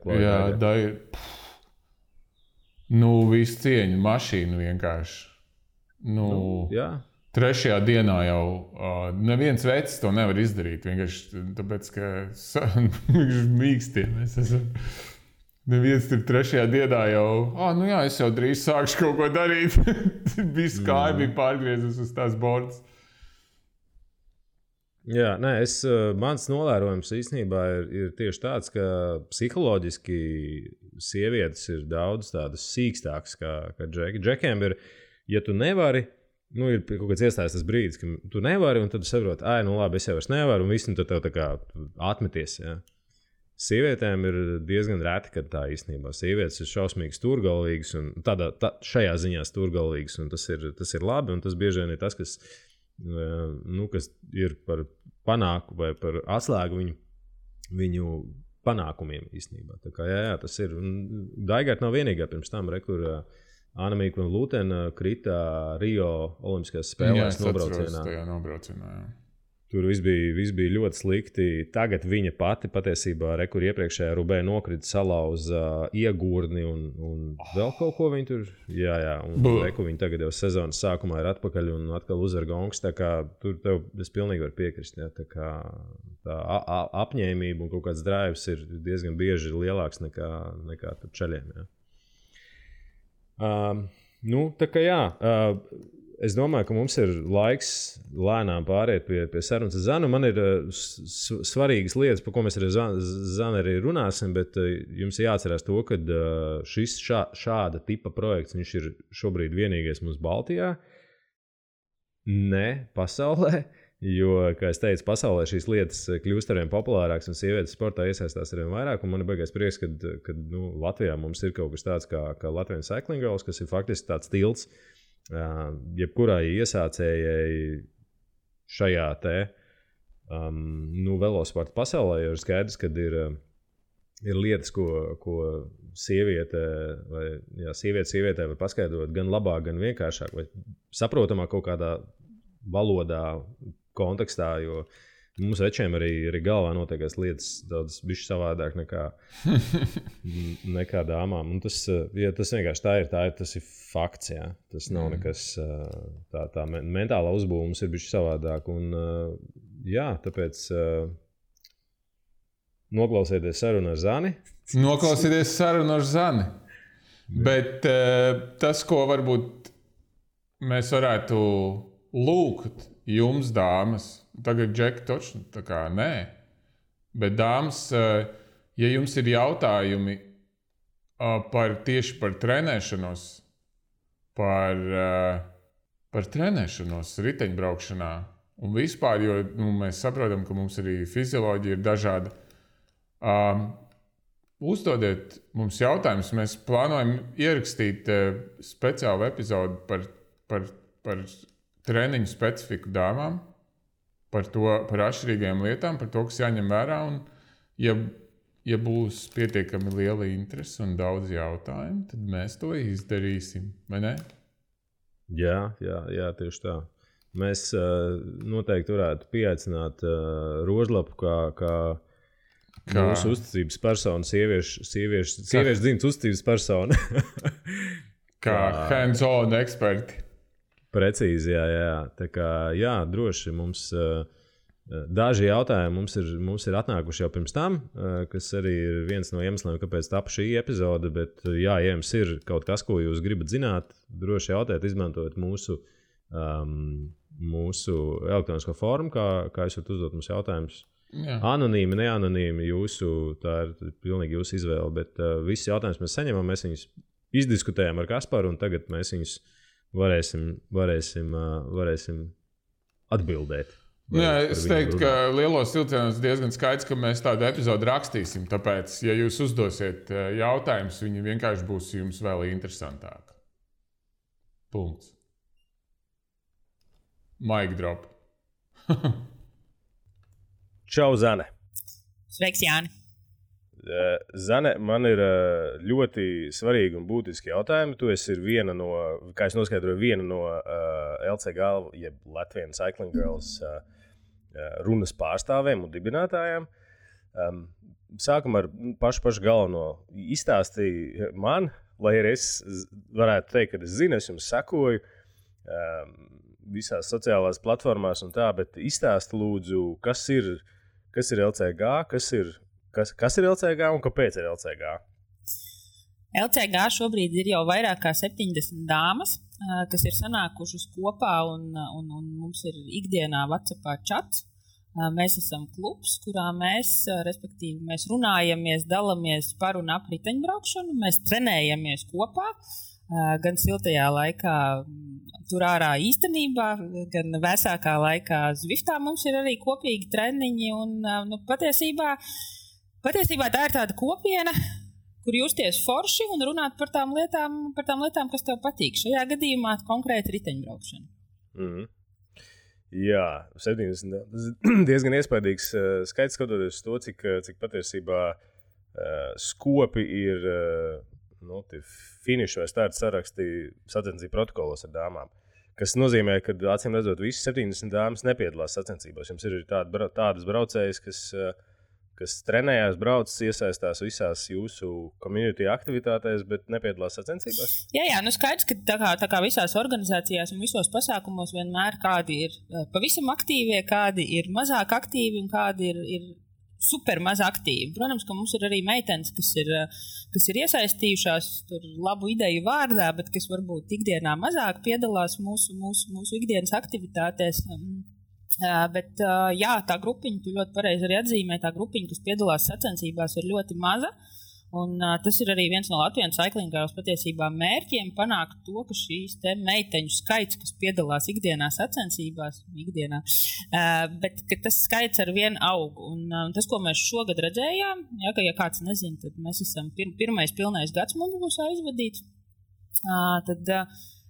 Speaker 3: Visu cieņu mašīnu vienkārši. Trešajā dienā jau neviens vecs to nevar izdarīt. Vienkārši tāpēc, ka mīkstie mēs esam. Neviens tur trešajā dienā jau, es jau drīz sākšu kaut ko darīt. Viss kāja bija pārgriezus uz tās bordas.
Speaker 2: Jā, mans novērojums īstenībā ir tieši tāds, ka psiholoģiski sievietes ir daudz tādas sīkstākas kā džeki. Džekiem ir, ja tu nevari, ir kaut kāds iestājas tas brīdis, ka tu nevari, un tad tu saproti, labi, es jau vairs nevaru, un viss, un tad tev tā kā atmeties. Ja. Sievietēm ir diezgan reti, kad tā īstenībā sievietes ir šausmīgi stūrgalvīgas un šajā ziņā stūrgalvīgas, un tas ir labi, un tas bieži vien ir tas, kas ir par panāku vai par atslēgu viņu panākumiem īstenībā. Tā kā tas ir. Daigart nav vienīgā pirms tam, kur Anna-Mīka un Lūtena krita Rio Olimpiskajās spēlēs nobraucienā. Tur viss bija ļoti slikti. Tagad viņa pati patiesībā, kur iepriekšējā Rubē nokrita salauza iegurni un vēl kaut ko viņa tur. Jā, un viņa tagad jau sezonas sākumā ir atpakaļ un atkal uzvar gongs. Tā kā tur es pilnīgi varu piekrist. Jā, tā kā tā apņēmība un kaut kāds drives ir diezgan bieži lielāks nekā tur čaļiem. Tā kā jā. Es domāju, ka mums ir laiks lēnām pāriet pie sarunas ar Zanu. Man ir svarīgas lietas, par ko mēs ar Zanu arī runāsim, bet jums jāatcerās to, ka šis šāda tipa projekts, viņš ir šobrīd vienīgais mums Baltijā, ne pasaulē, jo, kā es teicu, pasaulē šīs lietas kļūst arvien populārākas un sievietes sportā iesaistās arvien vairāk, un man ir baigais prieks, ka Latvijā mums ir kaut kas tāds kā Latvian Cycling Girls, kas ir faktiski tāds tilts, jebkurai iesācējai šajā velosporta pasaulē, jo ir skaidrs, ka ir lietas, ko sievietē var paskaidrot gan labāk, gan vienkāršāk, vai saprotamāk kaut kādā valodā, kontekstā, jo mums večiem arī galvā notiekās lietas daudz bišķi savādāk nekā dāmām. Un tas vienkārši tas ir fakts, jā. Tas nav nekas, tā mentālā uzbūve mums ir bišķi savādāk. Un tāpēc noklausieties sarunu ar Zani.
Speaker 3: Noklausieties sarunu ar Zani. Bet tas, ko varbūt mēs varētu lūgt jums, dāmas, tagad Džeki točni, tā kā nē, bet dāmas, ja jums ir jautājumi tieši par trenēšanos, par trenēšanos riteņbraukšanā un vispār, jo mēs saprotam, ka mums arī fizioloģija ir dažāda, uzdodiet mums jautājumus. Mēs plānojam ierakstīt speciālu epizodu par treniņu specifiku dāmām, par atšķirīgajām lietām, par to, kas jāņem vērā. Un, ja būs pietiekami liela interese un daudz jautājumu, tad mēs to izdarīsim, vai ne?
Speaker 2: Jā, tieši tā. Mēs noteikti varētu pieaicināt Rožlapu kā mūsu uzticības personu, sieviešu dzimtas uzticības personu.
Speaker 3: Kā hands-on eksperti.
Speaker 2: Precīzi, jā. Tā kā, droši mums daži jautājumi mums ir atnākuši jau pirms tam, kas arī ir viens no iemesliem, kāpēc tapa šī epizode, bet ja jums ir kaut kas, ko jūs gribat zināt, droši jautājiet, izmantojot mūsu elektronisko formu, kā jūs varat uzdot mums jautājumus. Jā. Anonīmi, neanonīmi, tā ir pilnīgi jūsu izvēle, bet visus jautājumus mēs saņemam, mēs viņus izdiskutējam ar Kasparu, un tagad mēs viņus varēsim atbildēt.
Speaker 3: Jā, es teiktu, ka lielos vilcienos diezgan skaidrs, ka mēs tādu epizodu rakstīsim, tāpēc, ja jūs uzdosiet jautājumus, viņi vienkārši būs jums vēl interesantāk. Punkts. Mic drop.
Speaker 2: Čau, Zane.
Speaker 4: Sveiks, Jāni.
Speaker 2: Zane, man ir ļoti svarīgi un būtiski jautājumi. Tu esi viena no, kā es noskaidroju, viena no LCG, jeb Latvian Cycling Girls runas pārstāvēm un dibinātājām. Sākam ar pašu galveno. Izstāstīja man, lai arī es varētu teikt, ka es zinu, es jums sekoju visās sociālās platformās un tā, bet izstāsti lūdzu, kas ir LCG, kas ir LCG un kāpēc ir LCG?
Speaker 4: LCG šobrīd ir jau vairāk kā 70 dāmas, kas ir sanākušas kopā un mums ir ikdienā WhatsAppā čats. Mēs esam klubs, kurā mēs runājamies, dalamies par un ap riteņbraukšanu, mēs trenējamies kopā, gan siltajā laikā tur ārā īstenībā, gan vēsākā laikā Zviftā mums ir arī kopīgi treniņi un patiesībā Patiesībā tā ir tāda kopiena, kur justies forši un runāt par tām lietām, kas tev patīk. Šajā gadījumā konkrēti riteņbraukšana.
Speaker 2: Mm. Jā, 70. Tas ir diezgan iespaidīgs skaits, skatoties to, cik patiesībā skopi ir finišu vai starta saraksti sacensību protokolos ar dāmām. Kas nozīmē, ka acīm redzot, visas 70 dāmas nepiedalās sacensībās. Jums ir tādas braucējas, kas trenējās, brauc, iesaistās visās jūsu community aktivitātēs, bet nepiedalās sacensībās?
Speaker 4: Jā, skaidrs, ka tā kā visās organizācijās un visos pasākumos vienmēr kādi ir pavisam aktīvie, kādi ir mazāk aktīvi un kādi ir super maz aktīvi. Protams, ka mums ir arī meitenes, kas ir iesaistījušās tur labu ideju vārdā, bet kas varbūt ikdienā mazāk piedalās mūsu ikdienas aktivitātēs. Bet jā, tā grupiņa, tu ļoti pareizi arī atzīmē, tā grupiņa, kas piedalās sacensībās, ir ļoti maza. Un tas ir arī viens no Latvijas Cycling Girls patiesībā mērķiem panākt to, ka šīs te meiteņu skaits, kas piedalās ikdienā sacensībās, bet ka tas skaits ar vienu aug. Un tas, ko mēs šogad redzējām, ja kāds nezina, tad mēs esam pirmais pilnais gads mums būs aizvadīts.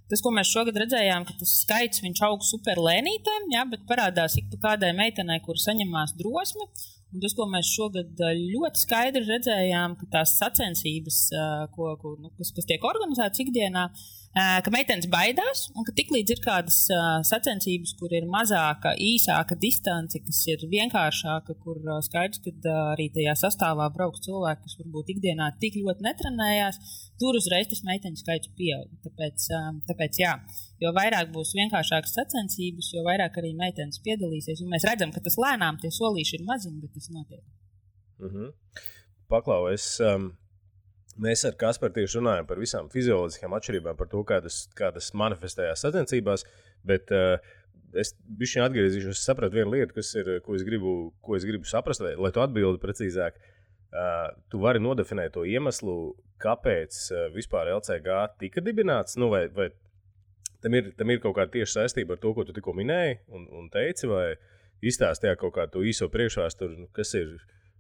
Speaker 4: Tas, ko mēs šogad redzējām, ka tas skaits viņš aug super lēnītēm, bet parādās ik pa kādai meitenei, kur saņemās drosmi. Un tas, ko mēs šogad ļoti skaidri redzējām, ka tās sacensības, kas tiek organizētas ikdienā, ka meitenes baidās un ka tiklīdz ir kādas sacensības, kur ir mazāka, īsāka distance, kas ir vienkāršāka, kur skaidrs, ka arī tajā sastāvā brauks cilvēki, kas varbūt ikdienā tik ļoti netrenējās, tur uzreiz tas meiteņu skaits pieaug. Tāpēc jā, jo vairāk būs vienkāršākas sacensības, jo vairāk arī meitenes piedalīsies. Un mēs redzam, ka tas lēnām tie solīši ir maziņi, bet tas notiek.
Speaker 2: Mm-hmm. Paklau, mēs ar Kasparu tieši runājam par visām fizioloģiskām atšķirībām, par to, kā tas manifestējās sacensībās, bet es bišķiņ atgriezīšos, sapratu vienu lietu, ko es gribu saprast, lai tu atbildi precīzāk. Tu vari nodefinēt to iemeslu, kāpēc vispār LCG tika dibināts, vai tam ir kaut kāda tieša saistība ar to, ko tu tikko minēji un teici, vai izstāstīja kaut kādu to īso priekšvēsturi,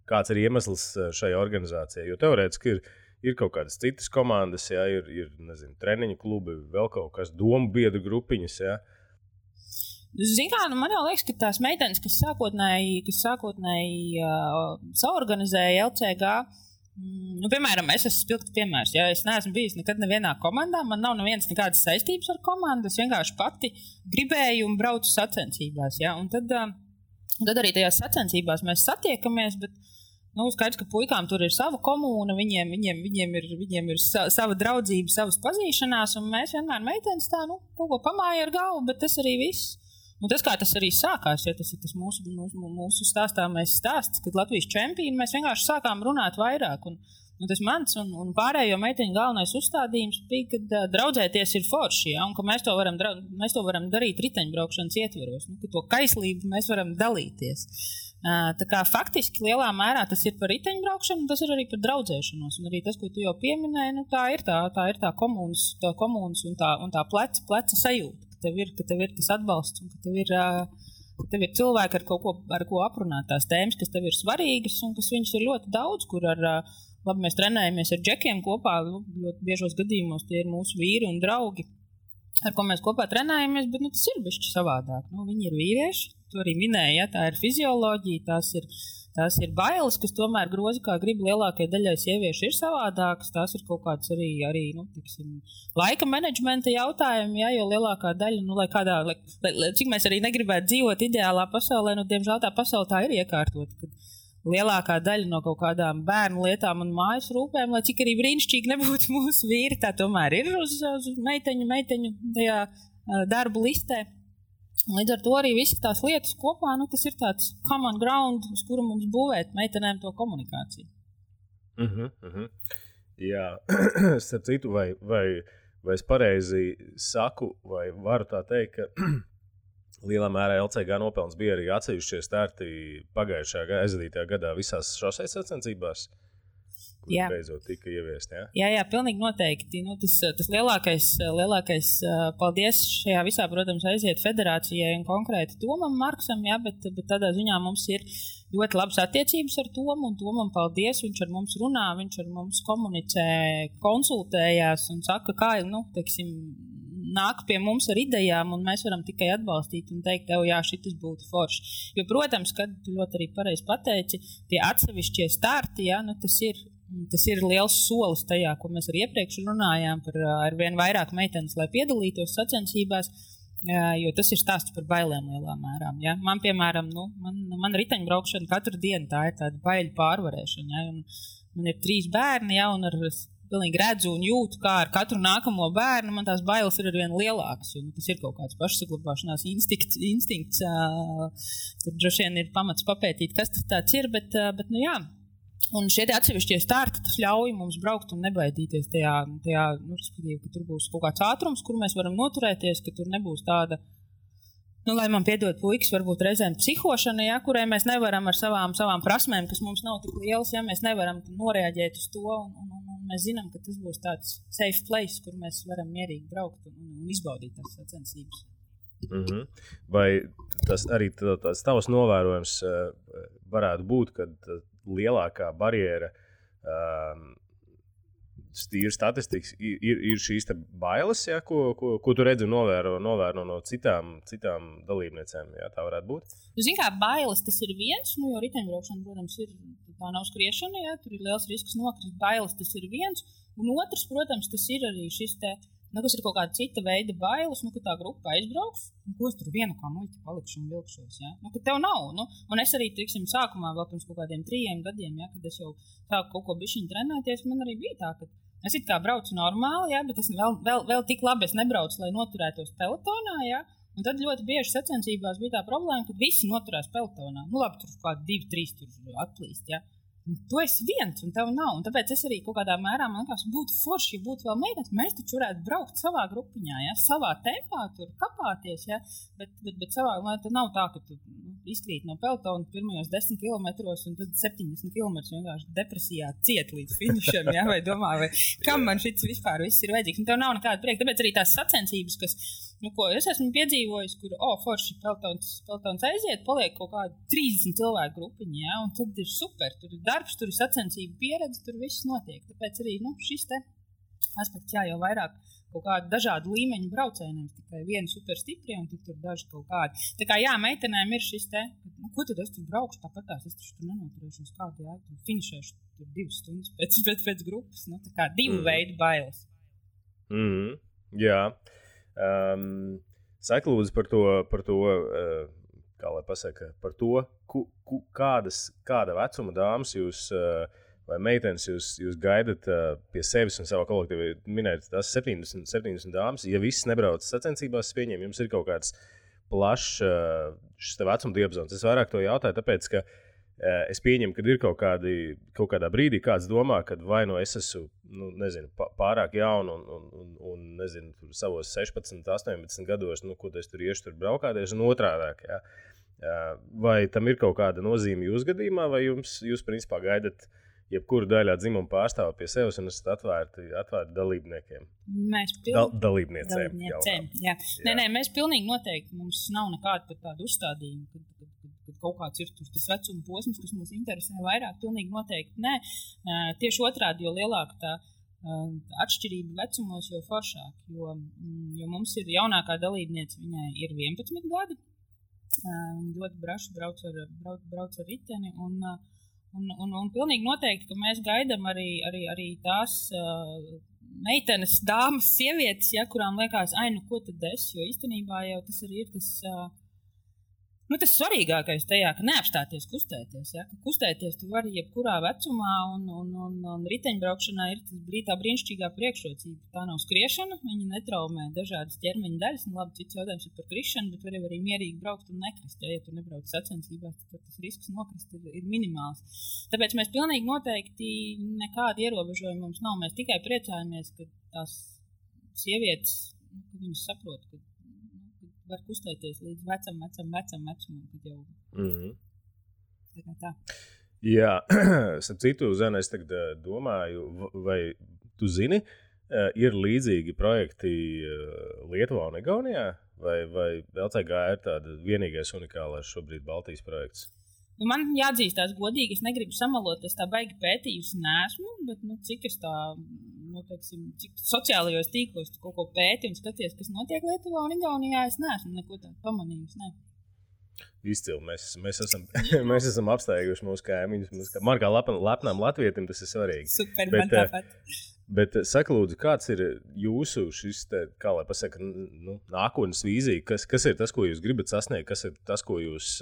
Speaker 2: kāds ir iemesls šai organizācijai, jo teorētiski ir kaut kādas citas komandas, ir nezinu, treniņu klubi, vēl kaut kas, domu biedru grupiņas,
Speaker 4: Zini kā, man jau liekas, ka tās meitenes, kas sākotnēji saorganizēja LCG, piemēram, es esmu spilgts piemērs, es neesmu bijis nekad nevienā komandā, man nav nevienas nekādas saistības ar komandu, es vienkārši pati gribēju un braucu sacensībās, un tad arī tajās sacensībās mēs satiekamies, bet skaidrs, ka puikām tur ir sava komūna, viņiem ir sava draudzība, savas pazīšanās, un mēs vienmēr meitenes tā, kaut ko pamāja ar galvu, bet tas arī viss. Un tas, kā tas arī sākās, tas ir tas mūsu stāstāmais stāsts, kad Latvijas čempioni mēs vienkārši sākām runāt vairāk. Un tas mans un pārējo meiteņu galvenais uzstādījums bija, ka draudzēties ir forši, un ka mēs to varam darīt riteņbraukšanas ietvaros, ka to kaislību mēs varam dalīties. Tā kā faktiski lielā mērā tas ir par riteņbraukšanu, un tas ir arī par draudzēšanos. Un arī tas, ko tu jau pieminēji, tā ir tā komunas un tā pleca sajūta. Ka tev ir tas atbalsts un ka tev ir cilvēki, ar ko aprunāt tās tēmas, kas tev ir svarīgas un kas viņas ir ļoti daudz, kur labi, mēs trenējamies ar džekiem kopā, ļoti biežos gadījumos tie ir mūsu vīri un draugi, ar ko mēs kopā trenējamies, bet tas ir bišķi savādāk. Viņi ir vīrieši, to arī minēja, tā ir fizioloģija, tās ir bailes, kas tomēr grozi, kā grib lielākajai daļai sieviešu ir savādākas, tās ir kaut kāds arī laika menedžmenta jautājumi, jo lielākā daļa, cik mēs arī negribētu dzīvot ideālā pasaulē, diemžēl tā pasaule tā ir iekārtot, kad lielākā daļa no kaut kādām bērnu lietām un mājas rūpēm, lai cik arī brīnišķīgi nebūtu mūsu vīri, tā tomēr ir uz meiteņu tajā darbu listē. Līdz ar to arī visas tās lietas kopā, tas ir tāds common ground, uz kuru mums būvēt meitenēm to komunikāciju.
Speaker 2: Jā, starp citu, vai es pareizi saku, vai varu tā teikt, ka lielā mērā LCG nopelns bija arī atsevišķie starti pagājušajā aizvadītajā gadā visās šoseis sacensībās, beidzot tika ieviest.
Speaker 4: Jā, pilnīgi noteikti. Nu, tas lielākais paldies šajā visā, protams, aiziet federācijai un konkrēti Tomam Marksam, bet tādā ziņā mums ir ļoti labas attiecības ar Tomu, un Tomam paldies, viņš ar mums runā, viņš ar mums komunicē, konsultējās un saka, kā, teiksim, nāk pie mums ar idejām, un mēs varam tikai atbalstīt un teikt, jā, šitas būtu forši. Jo, protams, kad tu ļoti arī pareizi pateici, tie atsevišķie starti, tas ir liels solis tajā, ko mēs arī iepriekš runājām par ar vien vairāk meitenes, lai piedalītos sacensībās, jo tas ir stāsts par bailēm lielā mērā. Ja? Man, piemēram, man riteņbraukšana katru dienu tā ir tāda baiļu pārvarēšana. Ja? Un man ir 3 bērni, ja? Un pilnīgi redzu un jūtu, kā ar katru nākamo bērnu man tās bailes ir arvien lielākas, jo tas ir kaut kāds pašsaglabāšanās instinkts. Tur droši vien ir pamats papētīt, kas tas tāds ir, bet jā. Un šie atsevišķie starti, tas ļauj mums braukt un nebaidīties tajā respektīvi, ka tur būs kaut kāds ātrums, kur mēs varam noturēties, ka tur nebūs tāda, lai man piedod puikas, varbūt reizēm psihošana, ja, kurai mēs nevaram ar savām prasmēm, kas mums nav tik lielas, ja mēs nevaram noreaģēt uz to, un mēs zinām, ka tas būs tāds safe place, kur mēs varam mierīgi braukt un izbaudīt tās sacensības.
Speaker 2: Vai tas arī tās tavs novērojums varētu būt, kad lielākā barjera tīri statistikas ir šīs te bailes, ja, ko tu redzi un novēro no citām dalībniecēm, ja, tā varētu būt?
Speaker 4: Zini kā, bailes tas ir viens, jo riteņbraukšana, protams, tā nav skriešana, ja, tur ir liels risks nokrist, bailes tas ir viens, un otrs, protams, tas ir arī šis te, kas ir kaut kāda cita veida bailes, ka tā grupa aizbrauks, ko es tur vienu kā muļķi palikšu un vilkšos, ja, ka tev nav, un es arī, teiksim, sākumā vēl pirms kaut kādiem 3 gadiem, ja, kad es jau sāku kaut ko bišķiņ trenēties, man arī bija tā, ka es it kā braucu normāli, ja, bet es vēl tik labi es nebraucu, lai noturētos pelotonā, ja, un tad ļoti bieži sacensībās bija tā problēma, ka visi noturās pelotonā. Labi, tur kādi 2-3 tur atplīst, ja. Un tu esi viens, un tev nav, un tāpēc es arī kaut kādā mērā, man liekas, būtu forši, ja būtu vēl meitenes, mēs taču varētu braukt savā grupiņā, ja, savā tempā, tur kapāties, ja, bet savā, lai tad nav tā, ka tu izkrīt no pelotona pirmajos 10 kilometros, un tad 70 kilometrus vienkārši depresijā ciet līdz finišam, ja, vai domā, vai kam man šits vispār viss ir vajadzīgs, un tev nav nekāda prieka, tāpēc arī tās sacensības, kas, ko es esmu piedzīvojis, kur, forši pelotons aiziet, paliek kaut kāda 30 cilvēku grupiņa, ja, un tad ir super, tur ir darbs, tur ir sacensību pieredze, tur viss notiek. Tāpēc arī šis te aspekts, jau vairāk kaut kādu dažādu līmeņu braucējiem, tikai vieni super stipri un tur daži kaut kādi. Tā kā meitenēm ir šis te, ko tad es tur braukšu, tāpatās es tur nenoturēšos kādu, tur finišēšu tur 2 stundas pēc grupas, tā kā 2 veidu bailes.
Speaker 2: Jā. Saki lūdzu par to kā lai pasaka, par to, kāda vecuma dāmas jūs vai meitenes jūs gaidat pie sevis un savā kolektīvā. Minēt tās 70 dāmas, ja viss nebrauc sacensībās, pieņem, jums ir kaut kāds plašs šis vecuma diapazons. Es vairāk to jautāju, tāpēc, ka es pieņemu, ka ir kaut kādā brīdī kāds domā, ka vai no es esmu, pārāk jaunu un nezinu, tur savos 16, 18 gados, ko es tur iešu tur braukāties un otrādāk, jā. Vai tam ir kaut kāda nozīme jūsu gadījumā, vai jūs principā gaidat jebkuru daļā dzimumu pārstāvu pie sevis un esat atvērti dalībniekiem? Dalībniecēm.
Speaker 4: Jā. Nē, mēs pilnīgi noteikti, mums nav nekāda pat tāda uzstādījuma, kad kaut kāds ir tas vecuma posms, kas mūs interesē vairāk, pilnīgi noteikti nē. Tieši otrādi, jo lielāka tā atšķirība vecumos, jo foršāk, jo mums ir jaunākā dalībniece, viņai ir 11 gadi, viņa ļoti braši brauc ar riteni, un pilnīgi noteikti, ka mēs gaidām arī tās meitenes, dāmas, sievietes, ja, kurām liekas, ko tad es, jo īstenībā jau tas arī ir tas tas svarīgākais tajā, ka neapstāties kustēties, ja, ka kustēties tu vari jebkurā vecumā, un riteņbraukšanā ir tā brīnišķīgā priekšrocība. Tā nav skriešana, viņa netraumē dažādas ķermeņa daļas, un labi, cits jautājums ir par krišanu, bet var arī mierīgi braukt un nekrist, ja tu nebrauc sacensībās, tad tas risks nokrist ir minimāls. Tāpēc mēs pilnīgi noteikti nekāda ierobežojuma mums nav, mēs tikai priecājamies, ka tās sievietes, ka viņas saprot, ka var kustēties līdz vecam vecumam, kad jau tā.
Speaker 2: Jā, starp citu, Zana, es tagad domāju, vai tu zini, ir līdzīgi projekti Lietuvā un Igaunijā, vai LCG ir tāda vienīgais unikālais šobrīd Baltijas projekts?
Speaker 4: Man jāatzīstās godīgi, es negribu samalot, es tā baigi pētījusi neesmu, bet cik es tā, cik sociālajos tīklos kaut ko pēti un skaties, kas notiek Lietuvā un Igaunijā, es neesmu neko tādu pamanījusi, ne.
Speaker 2: Izcili, mēs esam apsteiguši mūsu kaimiņus. Man kā lepnām latvietim tas ir svarīgi.
Speaker 4: Super, man tāpat.
Speaker 2: Bet saka, lūdzu, kāds ir jūsu šis, kā lai pasaka, nākotnes vīzija? Kas ir tas, ko jūs gribat sasniegt? Kas ir tas, ko jūs,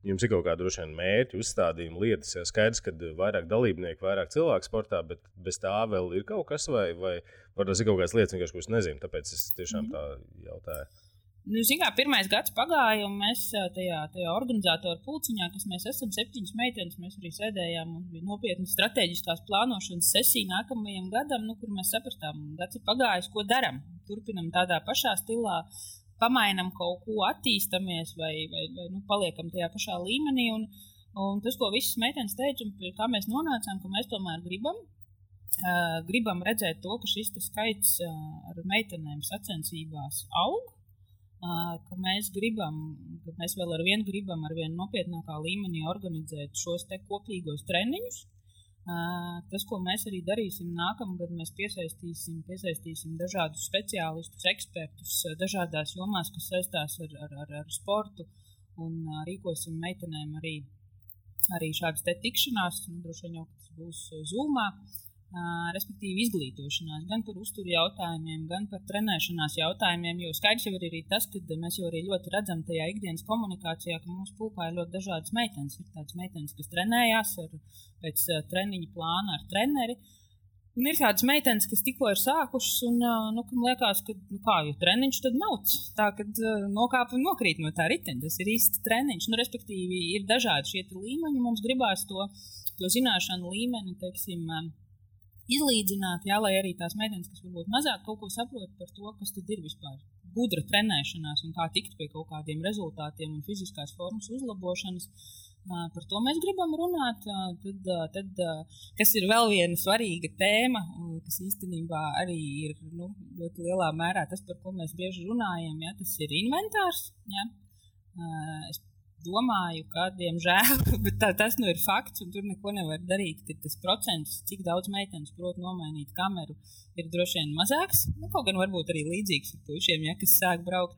Speaker 2: jums ir kaut kāda droši vien mērķi, uzstādījumi, lietas? Ja skaidrs, ka vairāk dalībnieku, vairāk cilvēku sportā, bet bez tā vēl ir kaut kas vai tas ir kaut kādas lietas, vienkārši, ko es nezinu, tāpēc es tiešām tā jautāju.
Speaker 4: Pirmais gads pagāja, un mēs tajā organizatoru pulciņā, kas mēs esam 7 meitenes, mēs arī sēdējām, un bija nopietna strateģiskās plānošanas sesija nākamajam gadam, kur mēs sapratām, gads ir pagājis, ko daram. Turpinam tādā pašā stilā, pamainam kaut ko, attīstamies vai paliekam tajā pašā līmenī, un tas, ko visas meitenes teica, un pie kā mēs nonācām, ka mēs tomēr gribam redzēt to, ka šis skaits ar meitenēm sacensībās aug, ka mēs vēl ar vien nopietnākā līmenī organizēt šos te kopīgos treniņus. Tas, ko mēs arī darīsim nākamgad, mēs piesaistīsim dažādus speciālistus, ekspertus dažādās jomās, kas saistās ar sportu, un rīkosim meitenēm arī šādas te tikšanās, droši vien jau tas būs Zoomā. Respektīvi izglītošanās, gan par uzturu jautājumiem, gan par trenēšanās jautājumiem, jo skaidrs jau ir arī tas, ka mēs jau arī ļoti redzam tajā ikdienas komunikācijā, ka mūsu pulkā ir ļoti dažādas meitenes. Ir tādas meitenes, kas trenējās pēc treniņa plāna ar treneri, un ir tādas meitenes, kas tikko ir sākušas, un kam liekas, ka jo treniņš tad mauc, tā, kad nokāp un nokrīt no tā riteņa, tas ir īsts treniņš, respektīvi ir dažādi šie līmeņi, mums gribās to zināšanu līmeni, teiksim, izlīdzināt, lai arī tās meitenes, kas varbūt mazāk kaut ko saprot par to, kas tad ir vispār gudra trenēšanās un kā tikt pie kaut kādiem rezultātiem un fiziskās formas uzlabošanas. Par to mēs gribam runāt. Tad, kas ir vēl viena svarīga tēma, kas īstenībā arī ir ļoti lielā mērā tas, par ko mēs bieži runājam, tas ir inventārs. Ja? Es domāju, ka, diemžēl, bet tas ir fakts, un tur neko nevar darīt, ka tas procents, cik daudz meitenes prot nomainīt kameru, ir droši vien mazāks. Kaut gan varbūt arī līdzīgs ar puišiem, kas sāk braukt.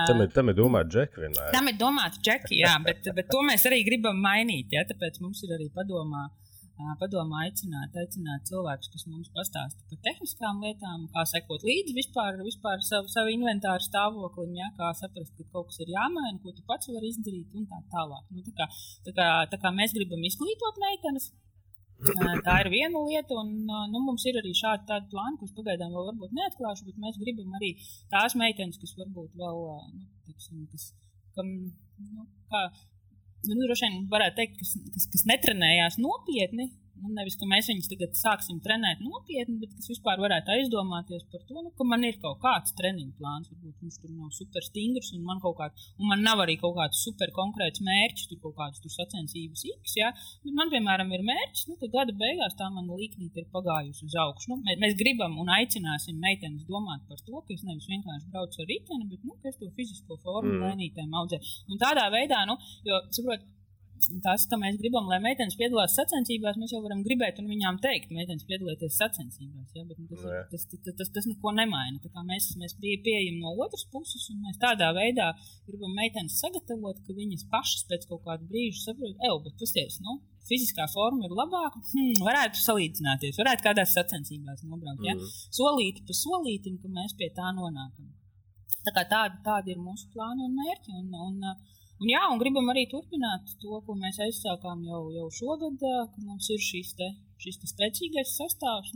Speaker 2: Tam ir domāta džeki vienmēr.
Speaker 4: Tam ir domāta džeki, jā, bet to mēs arī gribam mainīt, ja? Tāpēc mums ir arī padomā aicināt cilvēkus, kas mums pastāsta par tehniskām lietām, kā sekot līdzi vispār savu inventāru stāvoklim, ja? Kā saprast, ka kaut kas ir jāmaina, ko tu pats vari izdarīt un tā tālāk. Tā kā mēs gribam izglītot meitenes, tā ir viena lieta, un mums ir arī šādi plāni, kurus pagaidām vēl varbūt neatklāšu, bet mēs gribam arī tās meitenes, kas varbūt vēl, droši vien varētu teikt, kas netrenējās nopietni, nevis, ka mēs viņus tagad sāksim trenēt nopietni, bet kas vispār varētu aizdomāties par to, ka man ir kaut kāds treniņu plāns, varbūt viņš tur nav super stingrs, un man nav arī kaut kāds super konkrēts mērķis, tur kaut kādas sacensības X, ja? Bet man, piemēram, ir mērķis, ka gada beigās tā mana līknīte ir pagājusi uz augšu. Mēs gribam un aicināsim meitenes domāt par to, ka es nevis vienkārši braucu ar riteni, bet, ka es to fizisko formu lēnītēm audzēju. Un tādā veidā, jo, saprot, tas, ka mēs gribam, lai meitenes piedalās sacensībās, mēs jau varam gribēt un viņām teikt, meitenes piedalieties sacensībās, ja? Bet tas neko nemaina. Tā kā mēs pieejam no otras puses, un mēs tādā veidā gribam meitenes sagatavot, ka viņas pašas pēc kaut kādu brīžu saprot, bet pasties, fiziskā forma ir labāka, varētu salīdzināties, varētu kādās sacensībās nobraukt, ja? Solīti pa solītim, ka mēs pie tā nonākam. Tā kā tādi ir mūsu plāni un mērķi, un gribam arī turpināt to, ko mēs aizsākām jau šogad, ka mums ir šis spēcīgais sastāvs,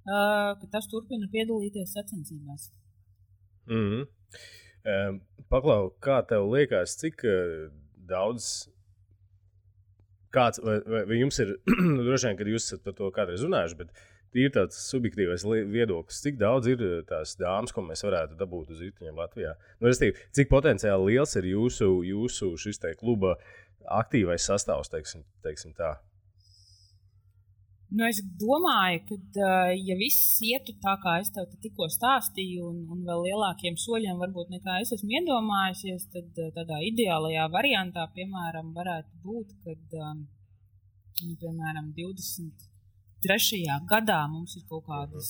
Speaker 4: ka tas turpina piedalīties sacensībās.
Speaker 2: Paklau, kā tev liekas, cik daudz, vai jums ir, droši vien, kad jūs esat par to kādreiz runājuši, bet ir tāds subjektīvais viedoklis, cik daudz ir tās dāmas, ko mēs varētu dabūt uz riteņiem Latvijā. Cik potenciāli liels ir jūsu šis te kluba aktīvais sastāvs, teiksim tā?
Speaker 4: Nu, es domāju, ka ja viss ietu tā, kā es tev tikko stāstīju, un vēl lielākiem soļiem varbūt nekā es esmu iedomājusies, tad tādā ideālajā variantā, piemēram, varētu būt, kad, piemēram, 23. gadā mums ir kaut kādas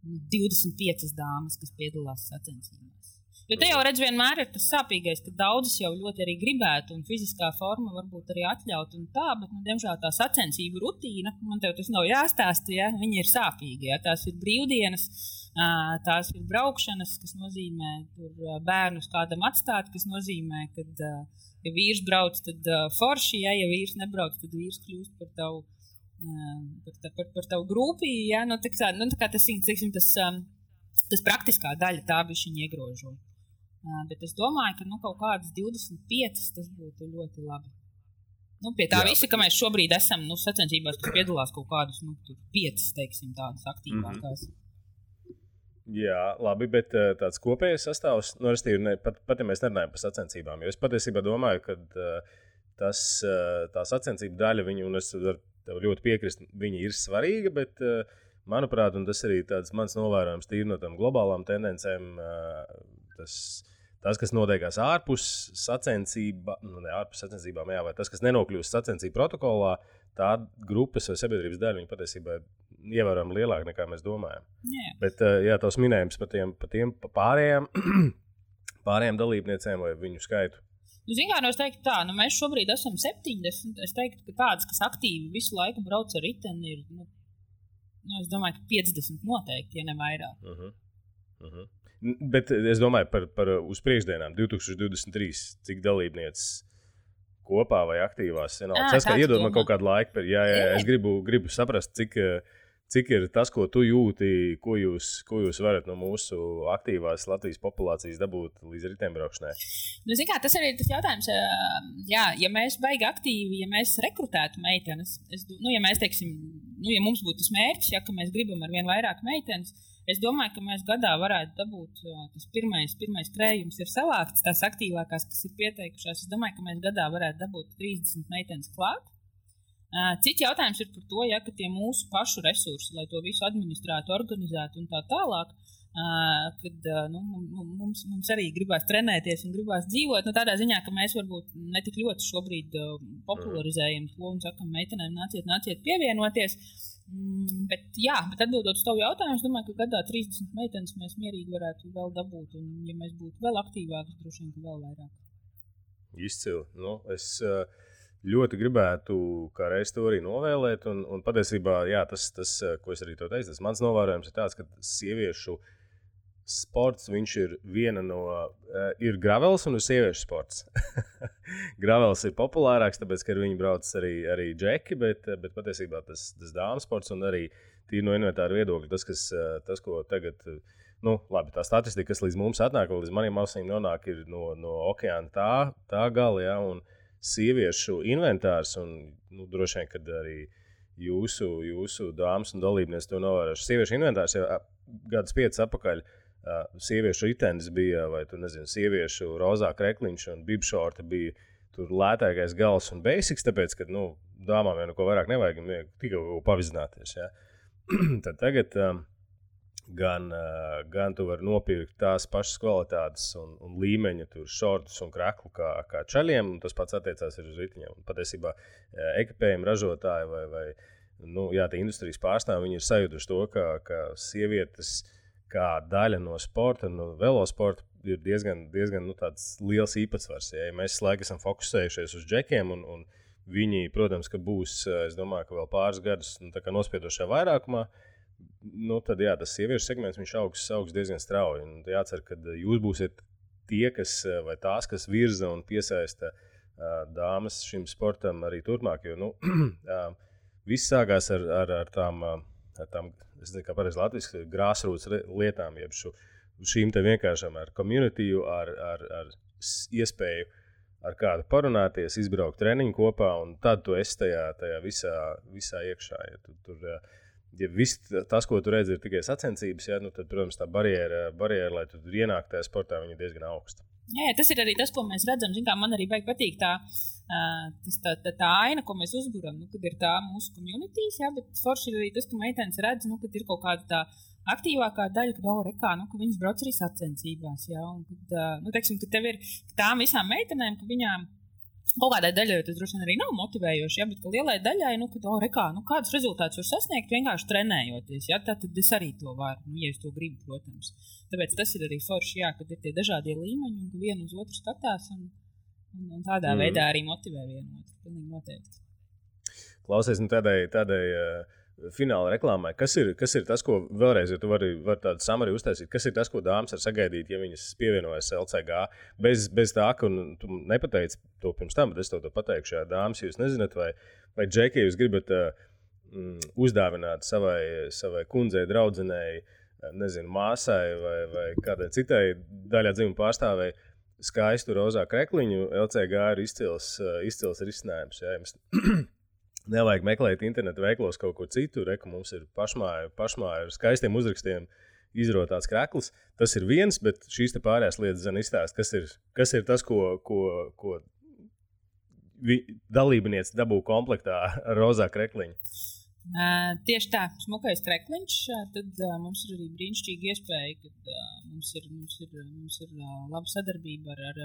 Speaker 4: 25 dāmas, kas piedalās sacensībās. Jo te jau redz, vienmēr ir tas sāpīgais, ka daudzas jau ļoti arī gribētu, un fiziskā forma varbūt arī atļaut un tā, bet, diemžēl tā sacensību rutīna, man tev tas nav jāstāsta, ja, viņi ir sāpīgi, ja, tās ir brīvdienas, tās ir braukšanas, kas nozīmē tur bērnus kādam atstāt, kas nozīmē, kad, ja vīrs brauc, tad forši, ja vīrs nebrauc, tad vīrs kļūst par tavu, par tavu grupī, ja, tā kā tas praktiskā daļa tā bišķiņ iegrožo. Bet es domāju, ka kaut kādas 25 tas būtu ļoti labi. Pie tā visa, ka mēs šobrīd esam sacensībās, kas piedalās kaut kādus 5, teiksim, tādas aktīvākās.
Speaker 2: Jā, labi, bet tāds kopējais sastāvs, pat ja mēs nerunājam par sacensībām, jo es patiesībā domāju, ka tā sacensību daļa, un es tev ļoti piekrist, viņa ir svarīga, bet manuprāt, un tas arī tāds mans novērojums tīri no tām globālām tendencēm, tas, kas notiekās ārpus sacensībām, jā, vai tas, kas nenokļūst sacensību protokolā, tā grupas vai sabiedrības daļa, viņa patiesībā ir ievērojami lielāka nekā mēs domājam.
Speaker 4: Jā.
Speaker 2: Bet, jā, tavs minējums par tiem pārējām dalībniecēm vai viņu skaitu.
Speaker 4: Es teiktu tā, mēs šobrīd esam 70, es teiktu, ka tādas, kas aktīvi visu laiku brauc ar riteni, ir, es domāju, ka 50 noteikti, ja ne vairāk.
Speaker 2: Bet es domāju par uz priekšdienām 2023, cik dalībnieces kopā vai aktīvās. Tas, kā iedod man kaut kādu laiku, es gribu saprast, cik ir tas, ko tu jūti, ko jūs varat no mūsu aktīvās Latvijas populācijas dabūt līdz riteņbraukšanai.
Speaker 4: Tas arī ir tas jautājums, ja mēs baigi aktīvi, ja mēs rekrutētu meitenes, ja mēs teiksim, ja mums būtu tas mērķis, ka mēs gribam ar vien vairāk meitenes, es domāju, ka mēs gadā varētu dabūt, tas pirmais krējums ir savākts, tās aktīvākās, kas ir pieteikušās, es domāju, ka mēs gadā varētu dabūt 30 meitenes klāt. Cits jautājums ir par to, ka tie mūsu pašu resursi, lai to visu administrētu, organizētu un tā tālāk, kad mums arī gribās trenēties un gribās dzīvot, tādā ziņā, ka mēs varbūt ne tik ļoti šobrīd popularizējam to un sakam meitenēm nāciet pievienoties. Bet atbildot uz tavu jautājumu, es domāju, ka gadā 30 meitenes mēs mierīgi varētu vēl dabūt, un ja mēs būtu vēl aktīvāki, droši vien, ka vēl vairāk.
Speaker 2: Izcili. Es ļoti gribētu kā reiz to arī novēlēt, un patiesībā, tas, ko es arī to teicu, tas mans novērojums ir tāds, ka sieviešu sports, viņš ir ir gravels un ir sieviešu sports. Gravels ir populārāks, tāpēc, ka viņi brauc arī džeki, bet patiesībā tas dāmas sports un arī tīri no inventāra viedokļa, tas, ko tagad, labi, tā statistika, kas līdz mums atnāk, līdz maniem ausīm nonāk, ir no okeāna tā gala, un sieviešu inventārs, un droši vien, kad arī jūsu dāmas un dalībnieks to novērojuši. Sieviešu inventārs jau gadus 5 atpakaļ, sieviešu ritenis bija, vai tu nezini, sieviešu rozā krekliņš un bibšorti bija tur lētākais gals un basics, tāpēc, ka, dāmām jau neko vairāk nevajag, tikai pavizināties, ja. Tad tagad gan tu vari nopirkt tās pašas kvalitātes un līmeņa tur šortus un kreklu kā čaļiem, un tas pats attiecās arī uz ritiņiem. Un patiesībā ekipējumi ražotāji vai tie industrijas pārstāvji, viņi ir sajutuši to, ka sievietes kā daļa no sporta, no velosporta ir diezgan tāds liels īpatsvars. Ja mēs laikam esam fokusējušies uz džekiem, un viņi, protams, ka būs, es domāju, ka vēl pāris gadus nospiedošajā vairākumā, tad tas sieviešu segments, viņš augs diezgan strauji. Un jācer, ka jūs būsiet tie, vai tās, kas virza un piesaista dāmas šim sportam arī turpmāk, jo viss sākās ar tām, es nezinu, kā pareizi latviski, grassroots lietām, jeb šīm te vienkāršām ar communityju, ar iespēju ar kādu parunāties, izbraukt treniņu kopā, un tad tu esi tajā visā iekšā. Ja viss tas, ko tu redzi, ir tikai sacensības, tad, protams, tā barjēra, lai tu ienāktu tajā sportā, viņa ir diezgan augsta.
Speaker 4: Jā, tas ir arī tas, ko mēs redzam. Zin, kā man arī patīk tā aina, ko mēs uzburam, kad ir tā mūsu communities, jā, bet forši ir arī tas, ka meitenes redz, kad ir kaut kāda tā aktīvākā daļa, ka viņas brauc arī sacensībās, jā, un kad, teiksim, ka tev ir tām visām meitenēm, ka viņām kaut kādai daļai tas droši vien arī nav motivējoši, ja, bet ka lielai daļai, kādus rezultātus var sasniegt vienkārši trenējoties, ja, tad es arī to varu, ja es to gribu, protams. Tāpēc tas ir arī forši, jā, kad ir tie dažādie līmeņi un ka vienu uz otru skatās un tādā veidā arī motivē vienu otru, pilnīgi noteikti.
Speaker 2: Klausies, tādai fināla reklāmai, kas ir tas, ko vēlreiz, ja tu vari tādu samari uztaisīt, kas ir tas, ko dāmas var sagaidīt, ja viņas pievienojas LCG, bez tā, ka tu nepateici to pirms tam, bet es to pateikšu, jā, dāmas, jūs nezināt, vai džeki, jūs gribat uzdāvināt savai kundzei, draudzenei, nezinu, māsai vai kādai citai daļā dzimuma pārstāvēji skaistu rozā krekliņu, LCG ir izcils risinājums, jā, jums nevajag meklēt internetu veiklos kaut ko citu, ka mums ir pašmāja ar skaistiem uzrakstiem izrotāts krekls. Tas ir viens, bet šīs te pārējās lietas zina izstāst, kas ir tas, ko dalībniece dabū komplektā ar rozā krekliņu.
Speaker 4: Tieši tā, smukais krekliņš, tad mums ir arī brīnišķīga iespēja, kad mums ir laba sadarbība ar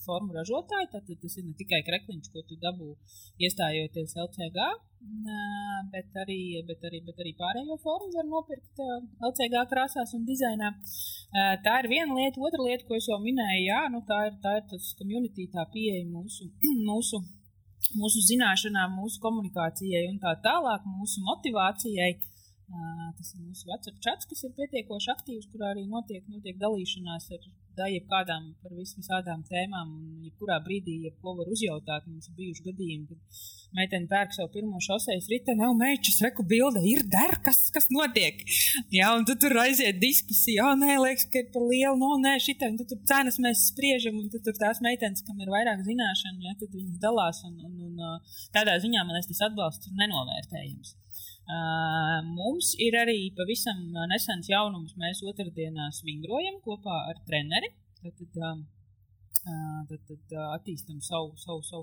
Speaker 4: formu ražotāju, tad tas ir ne tikai krekliņš, ko tu dabū iestājoties LCG, bet arī pārējo formu var nopirkt LCG krāsās un dizainā. Tā ir viena lieta, otra lieta, ko es jau minēju, jā, tā ir tas community, tā pieeja mūsu zināšanām, mūsu komunikācijai un tā tālāk, mūsu motivācijai. Tas ir mūsu WhatsApp chats, kas ir pietiekoši aktīvs, kurā arī notiek dalīšanās ar jebkādām par visādām tēmām un jebkurā brīdī, jebko var uzjautāt. Mums ir bijuši gadījumi, kad meitene pērk savu pirmo šosejas riteni, meičas, reku bilde, ir der, kas notiek? Jā, un tu tur aiziet diskusija, nē, liekas, ka ir par lielu, nē, šitai, un tur cenas mēs spriežam, un tur tās meitenes, kam ir vairāk zināšanu, ja, tad viņas dalās, un tādā ziņā, man tas atbalsts ir nenovērtējams. Mums ir arī pavisam nesens jaunums. Mēs otrdienās vingrojam kopā ar treneri. Tad attīstam savu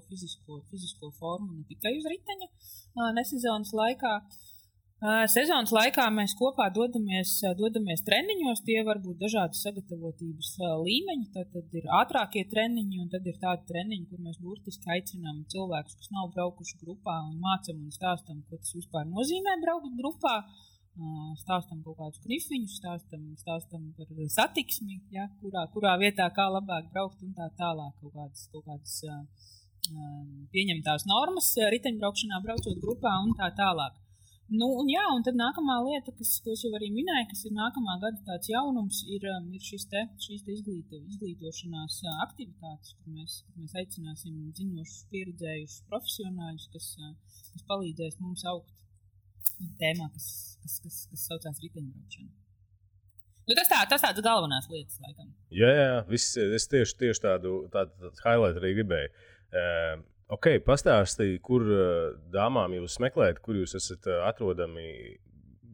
Speaker 4: fizisko formu ne tikai uz riteņa nesezonas laikā. Sezonas laikā mēs kopā dodamies treniņos, tie var būt dažādi sagatavotības līmeņi, tad ir ātrākie treniņi un tad ir tādi treniņi, kur mēs burtiski aicinām cilvēkus, kas nav braukuši grupā un mācam un stāstam, ko tas vispār nozīmē braukt grupā, stāstam kaut kādus knifiņus, stāstam par satiksmi, ja, kurā vietā kā labāk braukt un tā tālāk kaut kādas pieņemtās normas riteņbraukšanā braucot grupā un tā tālāk. Un tad nākamā lieta, ko es jau arī minēju, kas ir nākamā gada tāds jaunums, ir šīs izglītošanās aktivitātes, kur mēs aicināsim zinošus, pieredzējušus profesionāļus, kas palīdzēs mums augt tēmā, kas saucās riteņbraukšana. Tas tāds galvenās lietas, laikam.
Speaker 2: Jā, es tieši tādu highlight arī gribēju. Pastāstīja, kur dāmām jūs meklējat, kur jūs esat atrodami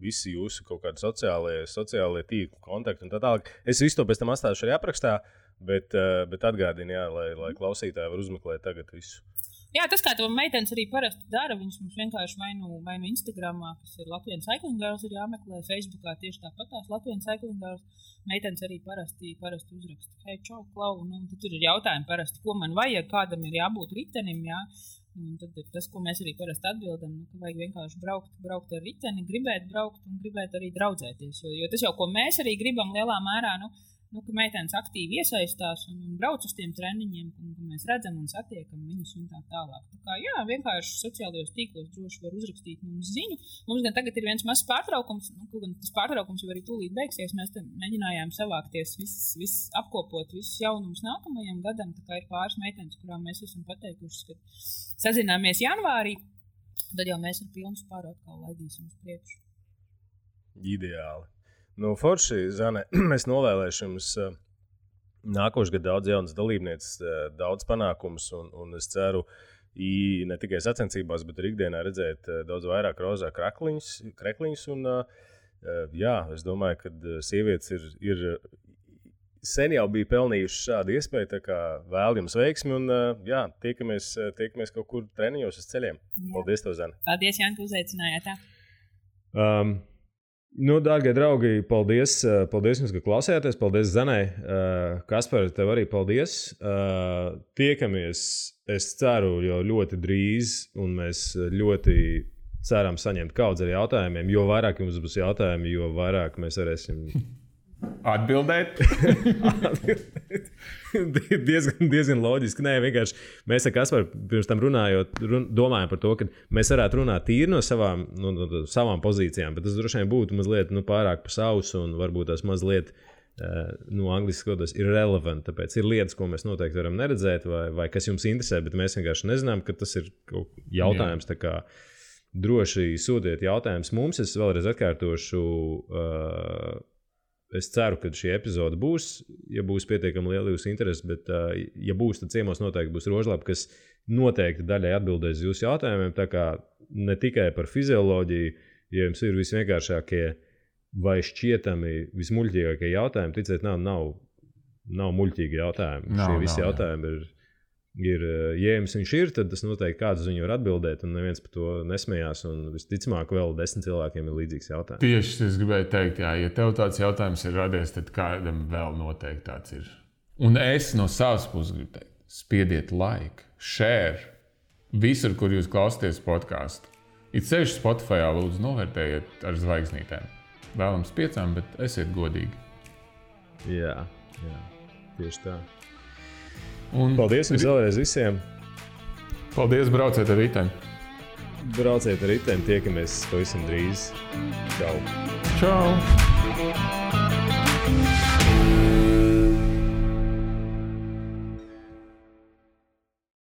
Speaker 2: visi jūsu kaut kādi sociālie tīkli, kontakti un tā tālāk. Es visu to pēc tam atstāšu arī aprakstā, bet atgādinu, jā, lai klausītāji var uzmeklēt tagad visu.
Speaker 4: Jā, tas, kā to meitenes arī parasti dara, viņas mums vienkārši vai nu Instagramā, kas ir Latvian Cycling Girls, ir jāmeklē, Facebookā tieši tāpatās Latvian Cycling Girls. Meitenes arī parasti uzraksta, hei, čau, klau, un tad tur ir jautājumi parasti, ko man vajag, kādam ir jābūt ritenim, jā. Un tad ir tas, ko mēs arī parasti atbildam, ka vajag vienkārši braukt ar riteni, gribēt braukt un gribēt arī draudzēties. Jo tas jau, ko mēs arī gribam lielā mērā, ka meitenes aktīvi iesaistās un brauc uz tiem treniņiem, ka mēs redzam un satiekam viņus un tā tālāk. Tā kā, jā, vienkārši sociālajos tīklos droši var uzrakstīt mums ziņu. Mums gan tagad ir viens mazs pārtraukums, gan tas pārtraukums jau arī tūlīt beigsies. Mēs te mēģinājām savākties, apkopot visus jaunumus nākamajam gadam. Tā kā ir pāris meitenes, kurām mēs esam pateikušas, ka sazināmies janvārī, tad jau mēs ar pilnu spāru atkal laidīsim uz priekšu.
Speaker 2: Ideāli. Forši, Zane, es novēlēšu jums nākošu gadu daudz jaunas dalībnieces, daudz panākumus, un es ceru ne tikai sacensībās, bet arī ikdienā redzēt daudz vairāk rozā krekliņus. Un, jā, es domāju, ka sievietes ir sen jau bija pelnījuši šādu iespēju, tā kā vēl jums veiksmi un jā, tiekamies kaut kur treniņos uz ceļiem. Jā. Paldies tev, Zane.
Speaker 4: Paldies, Jāni, ka uzaicinājāt.
Speaker 2: Dārgie draugi, paldies jums, ka klausījāties. Paldies, Zanai. Kaspar, tev arī paldies. Tiekamies, es ceru, jau ļoti drīz, un mēs ļoti ceram saņemt kaudz ar jautājumiem. Jo vairāk jums būs jautājumi, jo vairāk mēs varēsim
Speaker 3: atbildēt.
Speaker 2: diezgan loģiski. Nē, vienkārši mēs ar Kasparu pirms tam runājot, domājam par to, ka mēs varētu runāt tīri no savām pozīcijām, bet tas droši vien būtu mazliet pārāk pa sausu un varbūt tas mazliet angliski skotos irrelevant. Tāpēc ir lietas, ko mēs noteikti varam neredzēt vai kas jums interesē, bet mēs vienkārši nezinām, ka tas ir jautājums. Tā kā droši sūtiet jautājumus mums. Es vēlreiz atkārtošu. Es ceru, ka šī epizode būs, ja būs pietiekami liela jūsu interese, bet, ja būs, tad ciemos noteikti būs Rožlapa, kas noteikti daļai atbildēs jūsu jautājumiem. Tā kā ne tikai par fizioloģiju, ja jums ir visvienkāršākie vai šķietami vismuļķīgākie jautājumi, ticiet, nav muļķīgi jautājumi. Šie visi jautājumi ir, ja jums viņš ir, tad tas noteikti kāds uz viņu var atbildēt, un neviens par to nesmējās, un visticamāk vēl 10 cilvēkiem ir līdzīgs jautājums.
Speaker 3: Tieši es gribēju teikt, jā, ja tev tāds jautājums ir radies, tad kādam vēl noteikti tāds ir. Un es no savas puses gribu teikt, spiediet like, share, visur, kur jūs klausāties podcastu. It sevišķi Spotifyā lūdzu novērtējiet ar zvaigznītēm. Vēlams 5, bet esiet godīgi.
Speaker 2: Jā, tieši tā. Paldies jums vēlreiz visiem.
Speaker 3: Paldies, brauciet ar riteni.
Speaker 2: Tiekamies pavisam drīz. Čau.
Speaker 3: Čau.